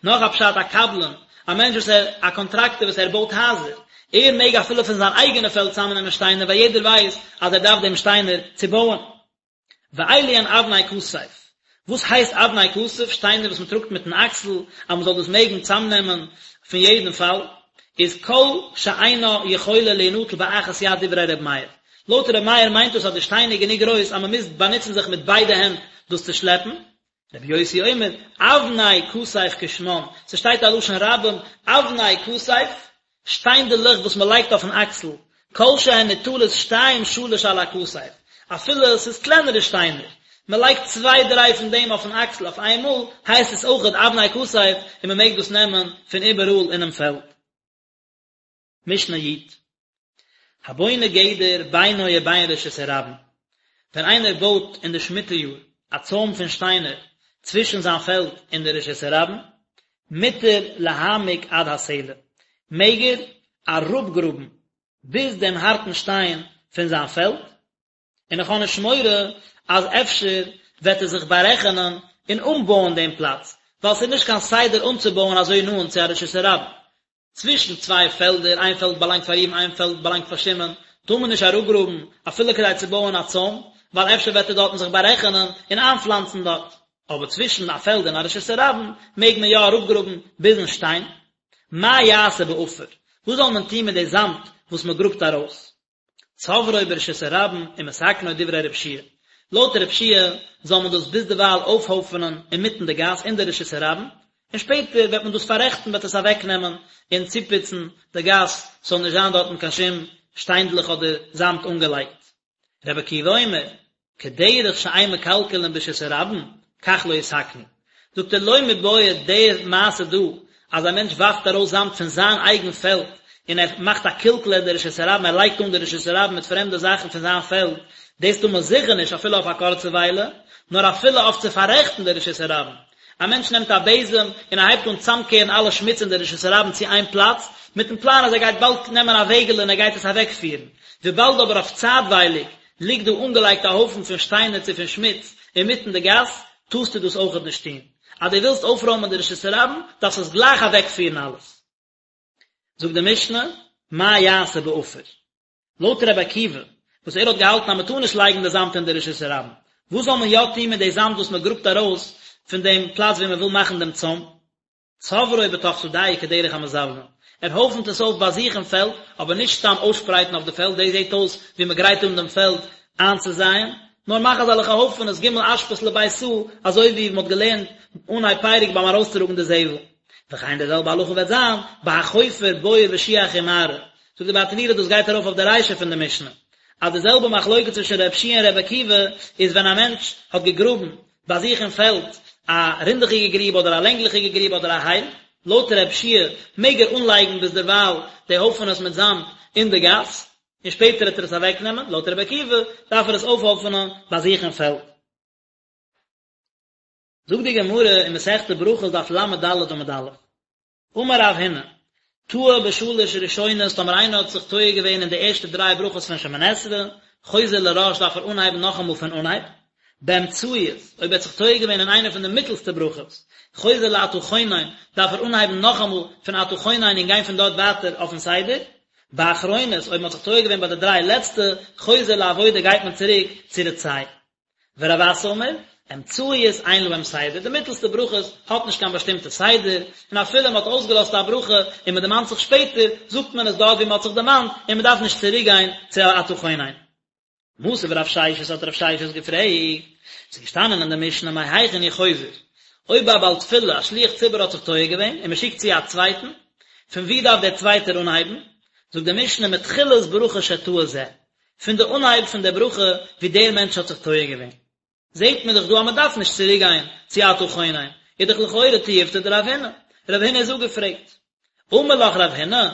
נאך א פשט, א קבלן, א מענטש וואס ער, א קאנטראקטער וואס ער בויט הייזער, ער מעג אפילו פון זיין אייגענע פעלד צאמנעמען שטיינער ווייל יעדער ווייסט אז ער דארף דעם שטיינער צו בויען. ואלו הן אבני כתף. וואס הייסט אבני כתף? שטיינער וואס מען טראגט מיטן אקסל, אז מען זאל דאס מעגן צאמנעמען פון יעדן פאל, איז כל שאינה יכולה להינטל באחת יד דברי ר' מאיר. לויט ר' מאיר מיינט דאס אז די שטיין איז גענוג גרויס אז מען מוז באנוצן זיך מיט ביידע הענט דאס צו שלעפן. רבי יוסי אומר, אבני כתף כשמן, ס'שטייט א לשון רבים, אבני כתף, שטיינדעלעך וואס מען לייגט אויפן אקסל, כל שהן ניטלות שתיים שלש על הכתף, אפילו ס'איז קלענערע שטיינער, מען לייגט צוויי דריי פון דעם אויפן אקסל אויף איינמאל, הייסט עס אויכעט אבני כתף און מען מעג דאס נעמען פון איבעראל אינעם פעלד. משנה י'. הבונה גדר בינו ובין רשות הרבים, ווען איינער בויט אין די שמיטה יאר א צוים פון שטיינער צווישן זיין פעלד און די רשות הרבים, מותר להעמיק עד הסלע, מעג ער אראפגראבן ביז דעם הארטן שטיין פון זיין פעלד, און איך האב נישט מורא אז אפשר וועט ער זיך בארעכענען און אנבויען דעם פלאץ, ווייל ס'איז נישט קיין סדר אנצובויען אזוי נאנט צו א רשות הרבים. צווישן צוויי פעלדער, איין פעלד באלאנגט פאר ראובן איין פעלד באלאנגט פאר שמעון, טאר מען נישט אראפגראבן אפילו כדי צו בויען א צוים, ווייל אפשר וועט ער דארטן זיך בארעכענען און איינפלאנצן דארט. אבער צווישן א פעלד און א רשות הרבים מעג מען יא אראפגראבן ביזן שטיין. מה יעשה בעפר? וואס זאל מען טון מיט די זאמד וואס מען גראבט ארויס? צוברו ברשות הרבים ומתקנו דברי רב יהושע לויט רב יהושע זאל מען דאס ביזדערווייל אויפהויפענען אינמיטן די גאס אין די רשות הרבים, און שפעטער וועט מען דאס פאררעכטן וועט עס אוועקנעמען און צופוצן די גאס ס'זאל נישט זיין דארטן קיין שום. שטיינדלעך אדער זאמד אנגעלייגט. רבי עקיבא אומר, כדרך שאין מקלקלין ברשות הרבים, כך לא יתקנו. זאגט ער לא מיבעיא די מעשה דא אז א מענטש ווארפט ארויס זאמד פון זיין אייגן פעלד און ער מאכט א קלקול אין די רשות הרבים ער לייגט אן די רשות הרבים מיט פרעמדע זאכן פון זיין פעלד, דאס טאר מען זיכער נישט אפילו אויף א קורצע וויילע, נאר אפילו אויף צו פאררעכטן די רשות הרבים. א מענטש נעמט א בעזעם און ער הייבט אן צאמקערן אלע שמוץ אין די רשות הרבים צו איין פלאץ, מיטן פלאן אז ער גייט באלד נעמען א וועגעלע און ער גייט עס אוועקפירן. וויבאלד אבער אויף צייטווייליג ליגט דא אנגעלייגט א הויפן פון שטיינער צו פון שמוץ אינמיטן די גאס, טארסטו דאס אויכעט נישט טון. אז דו ווילסט אויפרוימען די רשות הרבים, דארפסטו עס גלייך אוועקפירן אלעס. זאגט די משנה, מה יעשה בעפר? לויט רבי עקיבא, וואס ער האט געהאלטן אז מען טאר נישט לייגן די זאמד אין די רשות הרבים, וואס זאל מען יא טון מיט די זאמד וואס מען גראבט ארויס פון דעם פלאץ וואו מען וויל מאכן דעם צוים? צוברו בתוך שדהו כדרך המזבלין, ער הויפנט עס אויף ביי זיך אין פעלד, אבער נישט סתם אויסשפרייטן אויף די פעלד, דאס זעט אויס ווי מען גרייט אן דעם פעלד איינצוזייען, נאר מאך אזעלכע הויפענעס ג' אשפות לבית סאה, אזוי ווי מען האט געלערנט אנהייב פרק ביים ארויסטראגן די זבל. וכן די זעלבע הלכה וועט זיין בהחופר בור ושיח ומערה, זאגט די ברטנורא דאס גייט ארויף אויף די רישא פון די משנה, אז די זעלבע מחלוקת צווישן ר' יהושע און ר' עקיבא איז ווען א מענטש האט געגראבן ביי זיך אין פעלד א רינדעכיגע גריב אדער א לענגליכיגע גריב אדער א הייל, לויט ר' יהושע מעג ער אנלייגן ביזדערווייל די הויפענעס מיט זאמד אין די גאס, און שפעטער וועט ער עס אוועקנעמען, לויט ר' עקיבא דארף ער עס אויפהויפענען ביי זיך אין פעלד. זאגט די גמרא אין מסכת ברכות דף ל"ד עמוד א', אמר רב הונא, טעה בשלש ראשונות טאמער איינער האט זיך טועה געווען אין די ערשטע דריי ברכות פון שמונה עשרה, חוזר לראש דארף ער אנהייבן נאכאמאל פון אנהייב, באמצעיות, אויב ער האט זיך טועה געווען אין איינע פון די מיטלסטע ברכות, חוזר לאתה חונן, דארף ער אנהייבן נאכאמאל פון אתה חונן און גיין פון דארט ווייטער אויפן סדר, באחרונות, אויב מען האט זיך טועה געווען ביי די דריי לעצטע, חוזר לעבודה גייט מען צוריק צו רצה. ורב אסי אמר, אמצעיות אין להם סדר, די מיטלסטע ברכות האט נישט קיין באשטימטע סדר, און אפילו מען האט אויסגעלאזט א ברכה און מען דערמאנט זיך שפעטער, זאגט מען עס דארט ווי מען האט זיך דערמאנט, און מען דארף נישט צוריק גיין צו אתה חונן. מתיב רב ששת האט רב ששת געפרעגט, ס'איז געשטאנען אין די משנה מהיכן הוא חוזר, אויב א בעל תפילה, א שליח ציבור האט זיך טועה געווען און מען שיקט צו א צווייטן, פון וואו דארף דער צווייטער אנהייבן? זאגט די משנה מתחילת ברכה שטעה זה, פון די אנהייב פון די ברכה ווי דער מענטש האט זיך טועה געווען, זעט מען דאך דא אז מען דארף נישט צוריק גיין צו אתה חונן, איז דאך לכאורה תיובתא דרב הונא, רב הונא איז אפגעפרעגט. אמר לך רב הונא,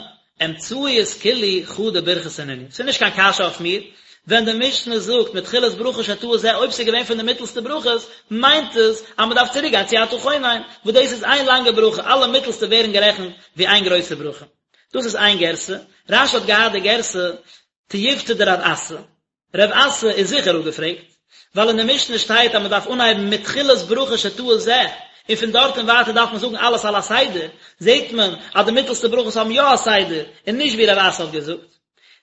אמצעיות כולהו חדא ברכתא נינהו, ס'איז נישט קיין קשיא אויף מיר, ווען די משנה זאגט מתחילת ברכה שטעה זה אויב ס'איז געווען פון די מיטלסטע ברכות, מיינט עס אז מען דארף צוריק גיין צו אתה חונן, וואס דאס איז איין לאנגע ברכה, אלע מיטלסטע ווערן גערעכנט ווי איין גרויסע ברכה. דאס איז איין גירסא, רש"י האט געהאט די גירסא תיובתא דרב אסי, רב אסי איז זיכער אפגעפרעגט, ווייל אין די משנה שטייט אז מען דארף אנהייבן מתחילת ברכה שטעה זה, און פון דארט און ווייטער דארף מען זאגן אלעס על הסדר, זעט מען אז די מיטלסטע ברכות האבן יא א סדר, און נישט ווי רב אסי האט געזאגט.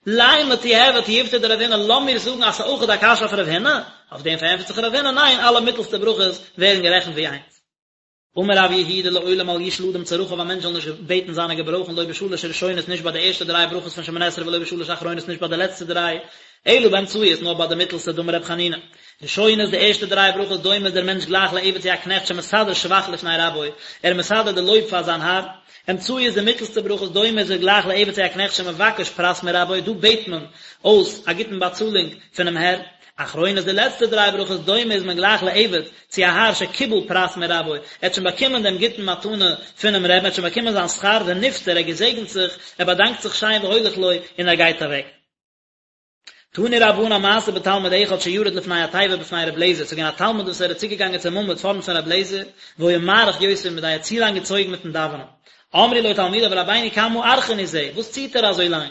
לימא תיהוי תיובתא דרב הונא, לאמיר זאגן אז ס'איז אויכעט א קשיא אויף רב הונא, אויף דעם פארענטפערט זיך רב הונא, ניין, אלע מיטלסטע ברכות ווערן גערעכנט ווי איינס. אמר רב יהודה לעולם אל ישאל אדם צרכיו א מענטש זאל נישט בעטן זיינע געברויכן לא בשלש ראשונות נישט ביי די ערשטע דריי ברכות פון שמונה עשרה ולא בשלש אחרונות נישט ביי די לעצטע דריי אלא באמצעיות נאר ביי די מיטלסטע דאמר רב חנינא ראשונות די ערשטע דריי ברכות דומה איז דער מענטש גלייך לעבד צו א קנעכט שמסדר שבח לפני רבו ער איז מסדר די לויב פאר זיין האר אמצעיות די מיטלסטע ברכות דומה איז ער גלייך לעבד צו א קנעכט שמבקש פרס מרבו דא בעט מען אויס א גוטן באצאלונג פונעם הער אחרונות די לעצטע דריי ברכות דומה איז מען גלייך לעבד צו א האר שקיבל פרס מרבו, ער האט שוין באקומען דעם גוטן מתנה פונעם רבי'ן, ער האט שוין באקומען זיין שכר, ונפטר, ער געזעגנט זיך, ער באדאנקט זיך שיין והולך לו, און ער גייט אוועק. תנו רבנן מעשה בתלמיד אחד שירד לפני התיבה בפני ר' לעזער, ס'איז געווען א תלמיד וואס ער איז צוגעגאנגען צום עמוד פארנט פון ר' לעזער, והיה מאריך יותר מדאי, ער האט צו לאנג געצויגן מיטן דאווענען. אמרו לו תלמידיו רבינו כמה ארכן הוא זה, וואס ציט ער אזוי לאנג?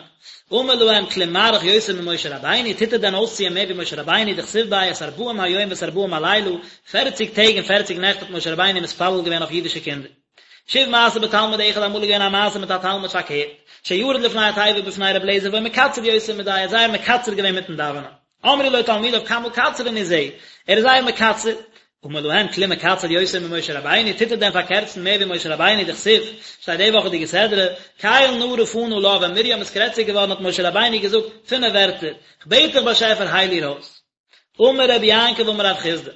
אמר להם כלום מאריך יותר ממשה רבינו, טוט ער דען אויסציען מער ווי משה רבינו, דכתיב ביה את ארבעים היום ואת ארבעים הלילה, פערציג טעג און פערציג נעכט האט משה רבינו מתפלל געווען אויף אידישע קינדער. שוב מעשה בתלמיד אחד אמאל איז געווען א מעשה מיט א תלמיד פארקערט, שירד לפני התיבה בפני רבי אליעזר והיה מקצר יותר מדאי, ער האט זייער מקצר געווען מיטן דאווענען. אמרו לו תלמידיו כמה קצרן הוא זה, ער איז זייער מקצר. אמר להם כלום מקצר יותר ממשה רבינו, טוט ער דען פארקערצן מער ווי משה רבינו, דכתיב, שטייט די וואכעדיגע סדרה, קל נא רפא נא לה, ווען מרים איז קרעציג געווארן האט משה רבינו געזאגט פינף ווערטער, כ'בעט דיך באשעפער הייל איר אויס. אמר רבי יעקב אמר רב חסדא,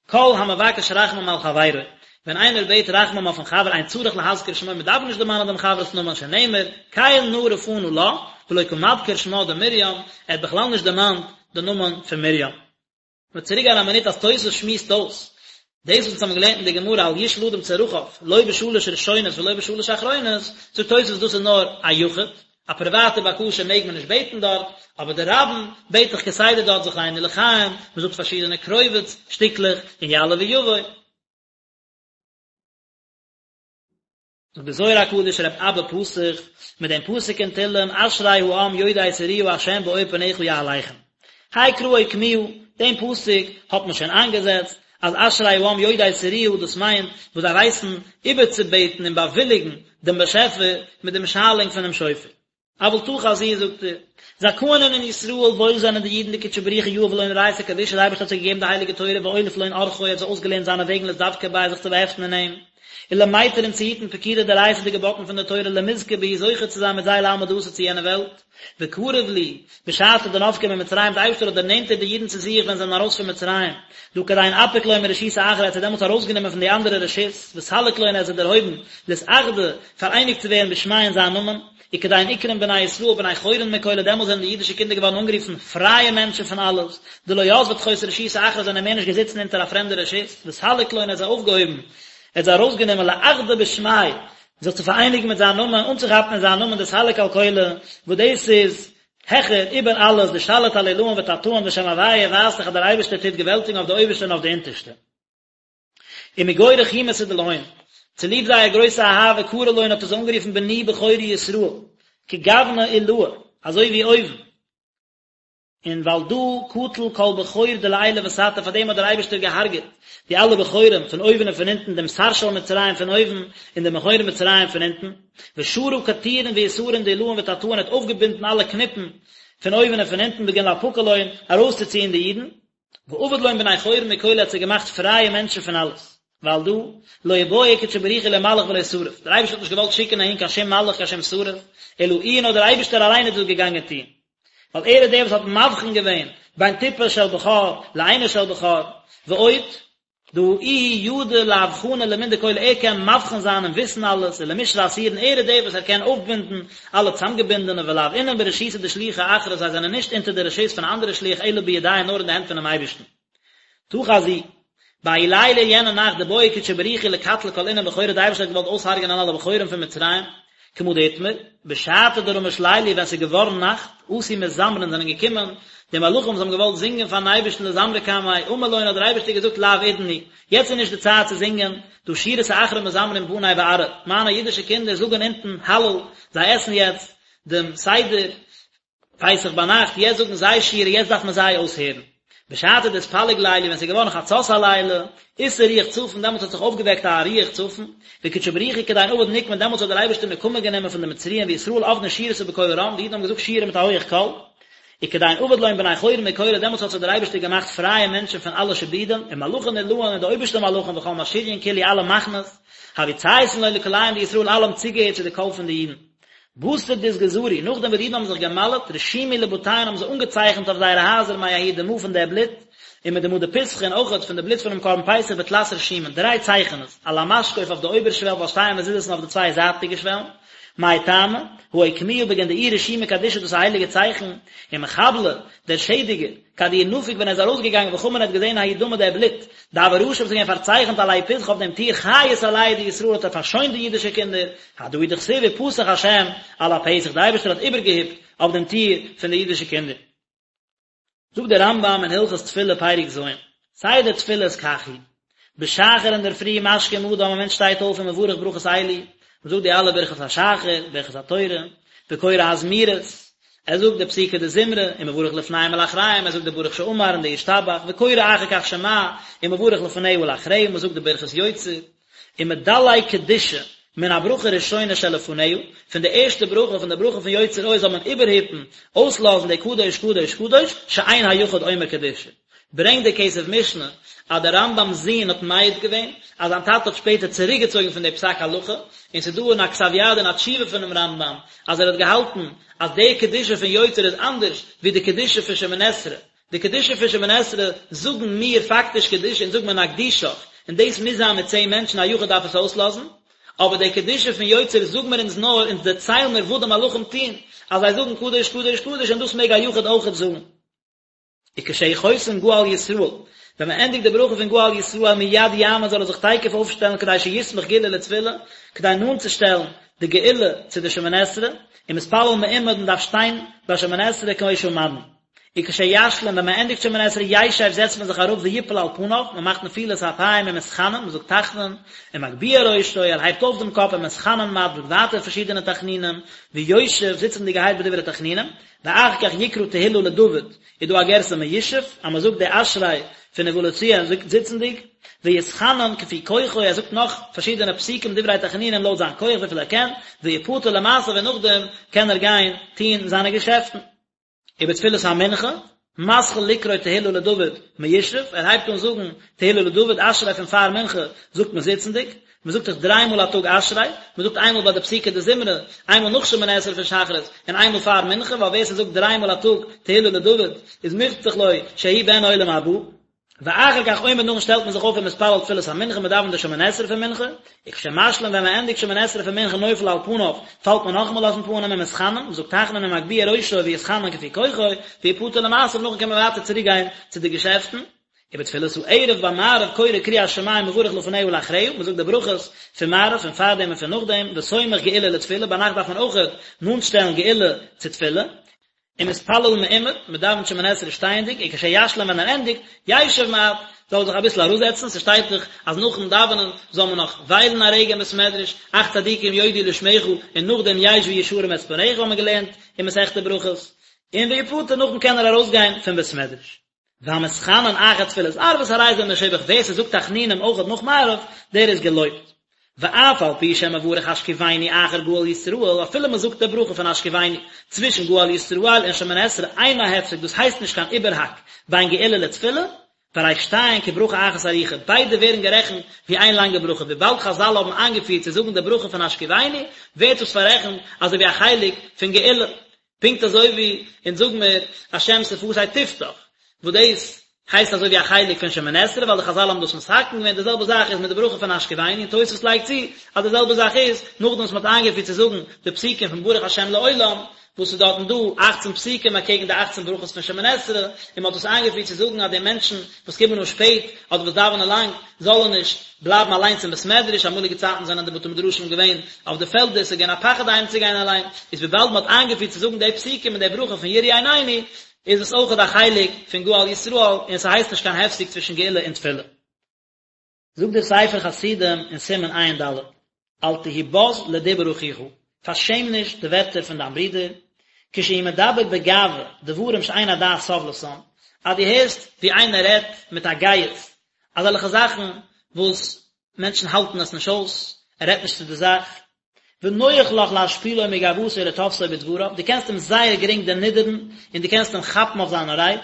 כל המבקש רחמים על חברו, ווען איינער בעט רחמים אויפן חבר אין צריך להזכיר שמו, מען דארף נישט דערמאנען דעם חבר'ס נאמען שנאמר, קל נא רפא נא לה, ולא קא מדכר שמה דמרים, ער האט בכלל נישט דערמאנט די נאמען פון מרים. מ'וועט צוריק גיין א מינוט אז תוס' שמועסט אויס דאס וואס אונז האבן געלערנט אין די גמרא אל ישאל אדם צרכיו לא בשלש ראשונות ולא בשלש אחרונות, זאגט תוס' דאס איז נאר א יחיד, א פריוואטע בקשה מעג מען נישט בעטן דארט, אבער די רבים בעט דאך כסדר דארט זכרנו לחיים, מ'זאגט פארשידענע קרובץ שטיקלעך און יעלה ויבוא. זאגט די זוהר הקדוש רב אבא פתח מיט דעם פסוק אין תהלים אשרי העם יודעי תרועה ה' באור פניך יהלכון האי קרא אוקמוה, דעם פסוק האט מען שוין איינגעזעצט אז אשרי העם יודעי תרועה דאס מיינט וואס זיי ווייסן איבערצובעטן און באוויליגן דעם באשעפער מיט דעם שאלונג פונעם שופר. אבל תא חזי זאגט ער, זכאין אינון ישראל וואויל זענען די אידן דקודשא בריך הוא יהב לון אורייתא קדישא די אייבערשטער האט זיי געגעבן די הייליגע תורה ואוליף לון אורחוי האט זיי אויסגעלערנט זיינע וועגן לאתדבקא ביה זיך צו באהעפטן אין אים, ולמיטר און צו היטן פקודי דאורייתא די געבאטן פון די תורה למזכי בהו זוכה צו זיין מיט זיי לעלמא דאתי צו יענע וועלט, וקריב להו, בשעתא דנפקו ממצרים די אייבערשטער האט דערנענטערט די אידן צו זיך ווען זיי זענען ארויס פון מצרים, דהא כדין אפיק לון מרשותא אחרא ער האט זיי דעמאלטס ארויסגענומען פון די אנדערע רשות, וסליק לון ער האט זיי דערהויבן, לאתאחדא, פאראייניגט צו ווערן בשמיה אין זיין נאמען, וכדין אקרון בני ישראל בני חורין מכלא דעמאלס זענען די אידישע קינדער געווארן אנגערופן פרייע מענטשן פון אלעס, דלא יתבי תחות רשותא אחרא זענען מער נישט געזיצן אונטער א פרעמדע רשות, וסליק לון ער האט זיי אויפגעהויבן, ער האט זיי ארויסגענומען לאחדא בשמיה, זיך צו פאראייניגן מיט זיין נאמען, אנצוכאפן אין זיין נאמען דסליק על כלא, וואס דאס איז העכער איבער אלעס, דשליט על עילאין ותתאין ושם הוויה ווייזט דאך אז דער אייבערשטער טוט געוועלטיגן אויף די אויבערשטע און אויף די אונטערשטע. ומגו רחימותא דלהון, צוליב זייער גרויסע אהבה קרי לון האט ער זיי אנגערופן בני בכורי ישראל, כגוונא עילאה, אזוי ווי אויבן, און ועל דא קטיל כל בכור דלעילא ותתא, פאר דעם האט דער אייבערשטער געהארגעט די אלע בכורים פון אויבן און פון אונטן, דעם שר של מצרים פון אויבן און דעם בכור מצרים פון אונטן, שרא קטירין ויתרין דעילאין ותתאין האט אויפגעבינדן אלע קניפן פון אויבן און פון אונטן בגין לאפקא לון, ארויסצוציען די אידן. ועביד לון בני חורין מכלא האט זיי געמאכט פרייע מענטשן פון אלעס, ועל דא, לא בעי קודשא בריך הוא לא מלאך ולא שרף, דער אייבערשטער האט נישט געוואלט שיקן אהין קיין שום מלאך קיין שום שרף, אלא איהו נאר דער אייבערשטער אליין איז דאס געגאנגען טון, ווייל ער איז דער וואס האט מבחין געווען בין טיפה של בכור לאינו של בכור, ועוד, דהא איהו ידע לאבחנא למן דכלא ער קען מבחין זיין און וויסן אלעס ולמשרי אסירין ער איז דער וואס ער קען אויפבינדן אלע צאמגעבינדענע ולאו אינון ברשותא דשליחא אחרא זיי זענען נישט אונטער די רשות פון א אנדערע שליח אלא בידיה נאר אין די הענט פונעם אייבערשטן. תא חזי. בהאי ליליא יענע נאכט דבעי קודשא בריך הוא לקטלא כל אינון בכורי די אייבערשטער האט געוואלט אויסהרג'ענען אלע בכורים פון מצרים, כמה דאתמר, בשעתא דרמש ליליא ווען ס'איז געווארן נאכט, אתו מזמרין זענען געקומען די מלאכים וואס האבן געוואלט זינגען פארן אייבערשטן לזמרא קמיה, אמר לון האט דער אייבערשטער געזאגט לאו עידן הוא, יעצט איז נישט די צייט צו זינגען, דהא שירתא אחרא מזמרין בני בארעא, מיינע אידישע קינדער זאגן אונטן הלל, זיי עסן יעצט דעם סדר, פסח ביינאכט, יעצט זאגן זיי שירה, יעצט דארף מען זיי אויסהערן. בשעתא דאתפלג ליליא, ווען ס'איז געווארן חצות הלילה, אתער רוח צפון, דעמאלטס האט זיך אויפגעוועקט א רוח צפון, וקודשא בריך הוא כדין עביד נקמא, דעמאלטס האט דער אייבערשטער נקמה גענומען פון די מצריים וישראל עבדין שירתא בקול רם, די אידן האבן געזאגט שירה מיט א הויעך קול, וכדין עביד לון בני חורין מכלא, דעמאלטס האט זיך דער אייבערשטער געמאכט פרייע מענטשן פון אלע שעבודים, ומלאכין עילאין און די אויבערשטע מלאכים וכל משריין כולהו אלע מחנות, הוו צייתין לון לקוליהון דישראל אלע האבן צוגעהערט צו די קול פון די אידן. בתר דאתגזרו, נאכדעם וואס די אידן האבן זיך גע'מל'ט, רשימו לבתיהון האבן זיי אנגעצייכנט אויף זייערע הייזער מההוא דמא פון דער בלוט, ומדמא דפסחא און אויכעט פון די בלוט פונעם קרבן פסח בתלת רשימין, דריי צייכענעס, על המשקוף אויף די אויבערשוועל ועל שתי המזוזות און אויף די צוויי זייטיגע שוועלן, מאי טעמא, הא אוקמוה בגין דאיהו רשימא קדישא דאס איז א הייליגע צייכן, ומחבלא, דער שעדיגער, כד איהו נפיק ווען ער איז ארויסגעגאנגען וחמא האט געזען ההוא דמא דער בלוט, דהוה רשים וואס איז געווען פארצייכנט על ההוא פתחא אויף דעם טיר חייס עלייהו דישראל האט ער פארשוינט די אידישע קינדער, הדא הוא דכתיב ופסח השם על הפתח דער אייבערשטער האט איבערגעהיפט אויף דעם טיר פון די אידישע קינדער. זאגט דער רמב"ם אין הלכות תפילה פרק ז', סדר תפילות כך הוא, בשחר אינדערפרי משכים אדם א מענטש שטייט אויף ומברך ברכות אלו, מען זאגט די אלע ברכות השחר, ברכות התורה, וקורא הזמירות, ער זאגט די פסוקי דזמרה, ומברך לפניהם ולאחריהם, ער זאגט די ברוך שאמר און די ישתבח, וקורא אחר כך שמע, ומברך לפניה ולאחריה, מען זאגט די ברכת יוצר, ומדלג קדושה מן הברכה הראשונה שלפניה, פון די ערשטע ברכה, פון די ברכה פון יוצר אור זאל מען איבערהיפן, אויסלאזן די קדוש קדוש קדוש, שאין היחיד אומר קדושה. ברענגט דער כסף משנה אז דער רמב"ם'ס זון האט מעיד געווען אז זיין טאטע האט שפעטער צוריקגעצויגן פון די פסק הלכה, און ס'איז דא אין א כתב יד אין א תשובה פונעם רמב"ם אז ער האט געהאלטן אז די קדושה פון יוצר איז אנדערש ווי די קדושה פון שמונה עשרה, די קדושה פון שמונה עשרה זאגן מיר פאקטיש קדושה אונז זאגן מיר נקדישך, און דאס מוז זיין מיט צען מענטשן א יחיד דארף עס אויסלאזן, אבער די קדושה פון יוצר זאגן מיר אונז נאר, אונז דערציילן מיר וואס די מלאכים טוען, אז זיי זאגן קדוש קדוש קדוש און דאס מעג א יחיד אויכעט זאגן. וכשהוא חותם גאל ישראל, ווען מען ענדיגט די ברכה פון גאל ישראל מיד יעמוד זאל ער זיך תיכף אויפשטעלן כדי שיסמוך גאולה לתפילה, כדי נאנט צו שטעלן די גאולה צו די שמונה עשרה, ומתפלל מעומד מען דארף שטיין ביי שמונה עשרה כמו שעמדנו. וכשישלים ווען מען ענדיגט שמונה עשרה ישב זעצט מען זיך אראפ ויפול על פניו, מען מאכט נפילת אפיים ומתחנן, מען זאגט תחנון, ומגביה ראשו, ער הייבט אויף דעם קאפ ומתחנן מעט, זאגט ווייטער פארשידענע תחנונים, ויושב, זיצענדיגערהייט בדברי תחנונים, ואחר כך יקרא תהילה לדוד, איז דא א גירסא מיושב, אז מען זאגט די אשרי פון ובא לציון זיצנדיג, ויתחנן כפי כוחו, ער זאגט נאך פארשידענע פסוקים דברי תחנונים לויט זיין כח וויפיל ער קען, ויפטר למעשיו און נאכדעם קען ער גיין טון זיינע געשעפטן. ובתפילת המנחה, מתחיל לקרוא תהילה לדוד מיושב, ער הייבט אן זאגן תהילה לדוד, אשרי פון פאר מנחה זאגט מען זיצנדיג, מען זאגט דאך דריי מאל א טאג אשרי, מען זאגט איינמאל ביי די פסוקי דזמרה, איינמאל נאך שמונה עשרה פון שחרית, און איינמאל פאר מנחה, ווייל ווער ס'זאגט דריי מאל א טאג תהילה לדוד איז מובטח לו שהוא בן עולם הבא. ואחר כך עומד נאכדעם שטעלט מען זיך אויף ומתפלל תפילת המנחה מען דאווענט די שמונה עשרה פון מנחה, וכשמשלים ווען מען ענדיגט שמונה עשרה פון מנחה נופל על פניו, פאלט מען נאכאמאל אויפן פנים ומתחנן, מען זאגט תחנון ומגביה ראשו ויתחנן כפי כוחו, ויפטר למעשיו נאכדעם קען מען ווייטער צוריק גיין צו די געשעפטן. ובתפילת הערב ביי מעריב קורא קריאת שמע ומברך לפניה ולאחריה, מען זאגט די ברכות פון מעריב פון פארדעם און פון נאכדעם, וסומך גאולה לתפילה, ביינאכט דארף מען אויכעט נאנט שטעלן גאולה צו תפילה, ומתפלל מעומד, מען דאווענט שמונה עשרה שטייענדיג, וכשישלים ווען ער ענדיגט, ישב מעט, זאל ער זיך אביסל אראפזעצן, ס'שטייט דאך אז נאכן דאווענען זאל מען נאך וויילן א רגע אין בית מדרש, אך צדיקים יודו לשמך, און נאכדעם ישבו ישרים את פניך האבן מיר געלערנט אין מסכת ברכות, און ויפטר נאכדעם קען ער ארויסגיין פון בית מדרש. והמתחנן אחר תפילת ערבית הרי זה משובח, ווער ס'זאגט תחנונים אויכעט נאך מעריב, דער איז געלויבט. ואף על פי שמברך השכיבנו אחר גאל ישראל, אפילו מ'זאגט די ברכה פון השכיבנו צווישן גאל ישראל און שמונה עשרה אינה הפסק, דאס הייסט נישט קיין איבערהאק בין גאולה לתפילה, והרי שתיהן כברכה אחת ארוכה, ביידע ווערן גערעכנט ווי איין לאנגע ברכה, וויבאלד חזל האבן איינגעפירט צו זאגן די ברכה פון השכיבנו, ווערט דאס פאררעכנט אזוי ווי א חלק פון גאולה. פונקט אזוי ווי אונז זאג מיר השם שפתי תפתח, וואס דאס הייסט אזוי ווי א חלק פון שמונה עשרה ווייל די חזל האבן דאס מתקן געווען, די זעלבע זאך איז מיט די ברכה פון השכיבנו, און תוספות לייגט צו אז די זעלבע זאך איז נאכדעם וואס מען האט איינגעפירט צו זאגן די פסוקים פון ברוך השם לעולם, וואס איז דארטן דא אכצן פסוקים אקעגן די אכצן ברכות פון שמונה עשרה, און מען האט דאס איינגעפירט צו זאגן אז די מענטשן וואס קומען אן שפעט אדער וואס דאווענען לאנג זאלן נישט בלייבן אליינס אין בית מדרש, אמאליגע צייטן זענען די בתי מדרשים געווען אויף די פעלדער, ס'איז געווען א פחד אהיים צו גיין אליין, איז וויבאלד מ'האט איינגעפירט צו זאגן די פסוקים און די ברכה פון יראו עינינו, איז עס אויכעט א חלק פון גאל ישראל, און ס'הייסט נישט קיין הפסק צווישן גאולה און תפילה. זאגט דער ספר חסידים אין סימן ע"ד, אל תהי בז לדיבור אחיך, פארשעם נישט די ווערטער פון דיין ברודער, כשהוא מדבר בגאווה דברים שאין הדעת סובלתם, אז דו הערסט ווי איינער רעדט מיט א גאות, אזעלכע זאכן וואס מענטשן האלטן עס נישט אויס, ער רעדט נישט צו די זאך, ונוח לך להשפילו מגאוותו ולתפסו בדבריו, דו קענסט אים זייער גרינג דערנידערן און דו קענסט אים כאפן אויף זיינע רייד,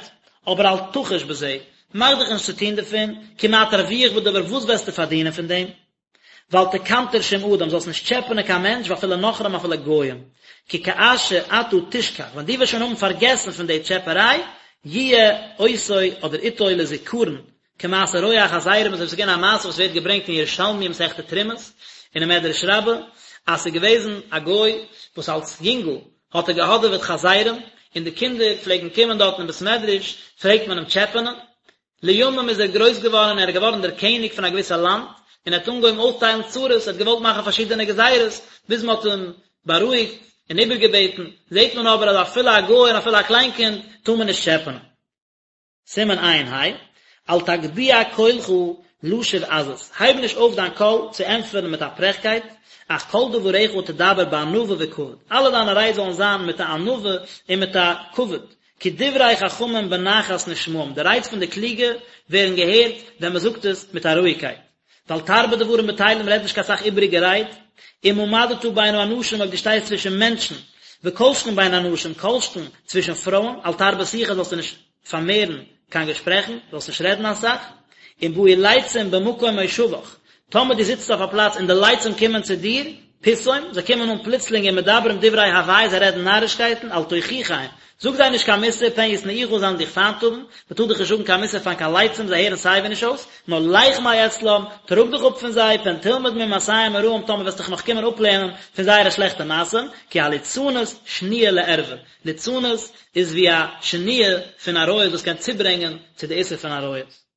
אבער אל תחוש בזה, מאך דיך נישט צו טון דערפון, כי מה תרוויח בדבר וואס וועסטו פארדינען פון דעם? ואל תקנטר שום אדם, זאלסט נישט טשעפענען קיין מענטש ואפילו נכרים אפילו גויים, כי כאשר אתה תשכח, ווען דו וועסט שוין האבן פארגעסן פון די טשעפעריי, יהיה אותו אדער איתו לזכרון, כמעשה רועה החזירים אזוי ווי ס'איז געווען א מעשה וואס ווערט געברענגט אין ירושלמי מסכת תרומות און אין מדרש רבה אז ס'איז געוועזן א גוי וואס אלס יונגל האט ער געהאדעוועט חזירים און די קינדער פלעגן קומען דארטן אין בית מדרש פלעגט מען אים טשעפענען לימים איז ער גרויס געווארן און ער איז געווארן דער קעניג פון א געוויסע לאנד און ער האט אנגעהויבן אויסטיילן צרות ער האט געוואלט מאכן פארשידענע גזירות ביז מען האט אים בארואיגט און איבערגעבעטן זעט מען אבער אז אפילו א גוי און אפילו א קליין קינד טאר מען נישט טשעפענען. סימן ע"ה, אל תגביה קולך להשיב עזות, הייב נישט אויף דיין קול צו ענטפערן מיט א פרעכקייט, אך כל דבריך תדבר בענווה וכבוד, אלע דיינע רייד זאלן זיין מיט א ענווה און מיט א כבוד, כי דברי חכמים בנחת נשמעים, די רייד פון די קלוגע ווערן געהערט ווען מען זאגט עס מיט א רואיגקייט. ואל תרבה דברים בטלים רעד נישט קיין סך איבעריגע רייד, אם עמדת בין האנשים אויב דו שטייסט צווישן מענטשן, וכל שכן בין הנשים כל שכן צווישן פרויען, אל תרבה שיחה זאלסטו נישט פארמערן קיין געשפרעכן, זאלסט נישט רעדן אסאך, אם באו לצים במקום מושבך, טאמער דו זיצט אויף א פלאץ און די לצים קומען צו דיר. פתאום, זיי קומען אן פלוצלינג ומדברים דברי הבאי זיי רעדן נארישקייטן, אל תוכיחם, זאג זיי נישט קיין מוסר, פן ישנאוך זיי וועלן דיך פיינט האבן, מען טאר דאך נישט זאגן קיין מוסר פאר קיין לצים זיי הערן סייווי נישט אויס, נאר לך מאצלם, טראג דיך אפ פון זיי, פן תלמד ממעשיהם הרעים טאמער וועסט דיך נאך קומען אפלערנען פון זייערע שלעכטע מעשים, כי הליצנות שניה לערווה, ליצנות איז ווי א שניה פון עריות וואס קען צוברענגען צו די איסור פון עריות.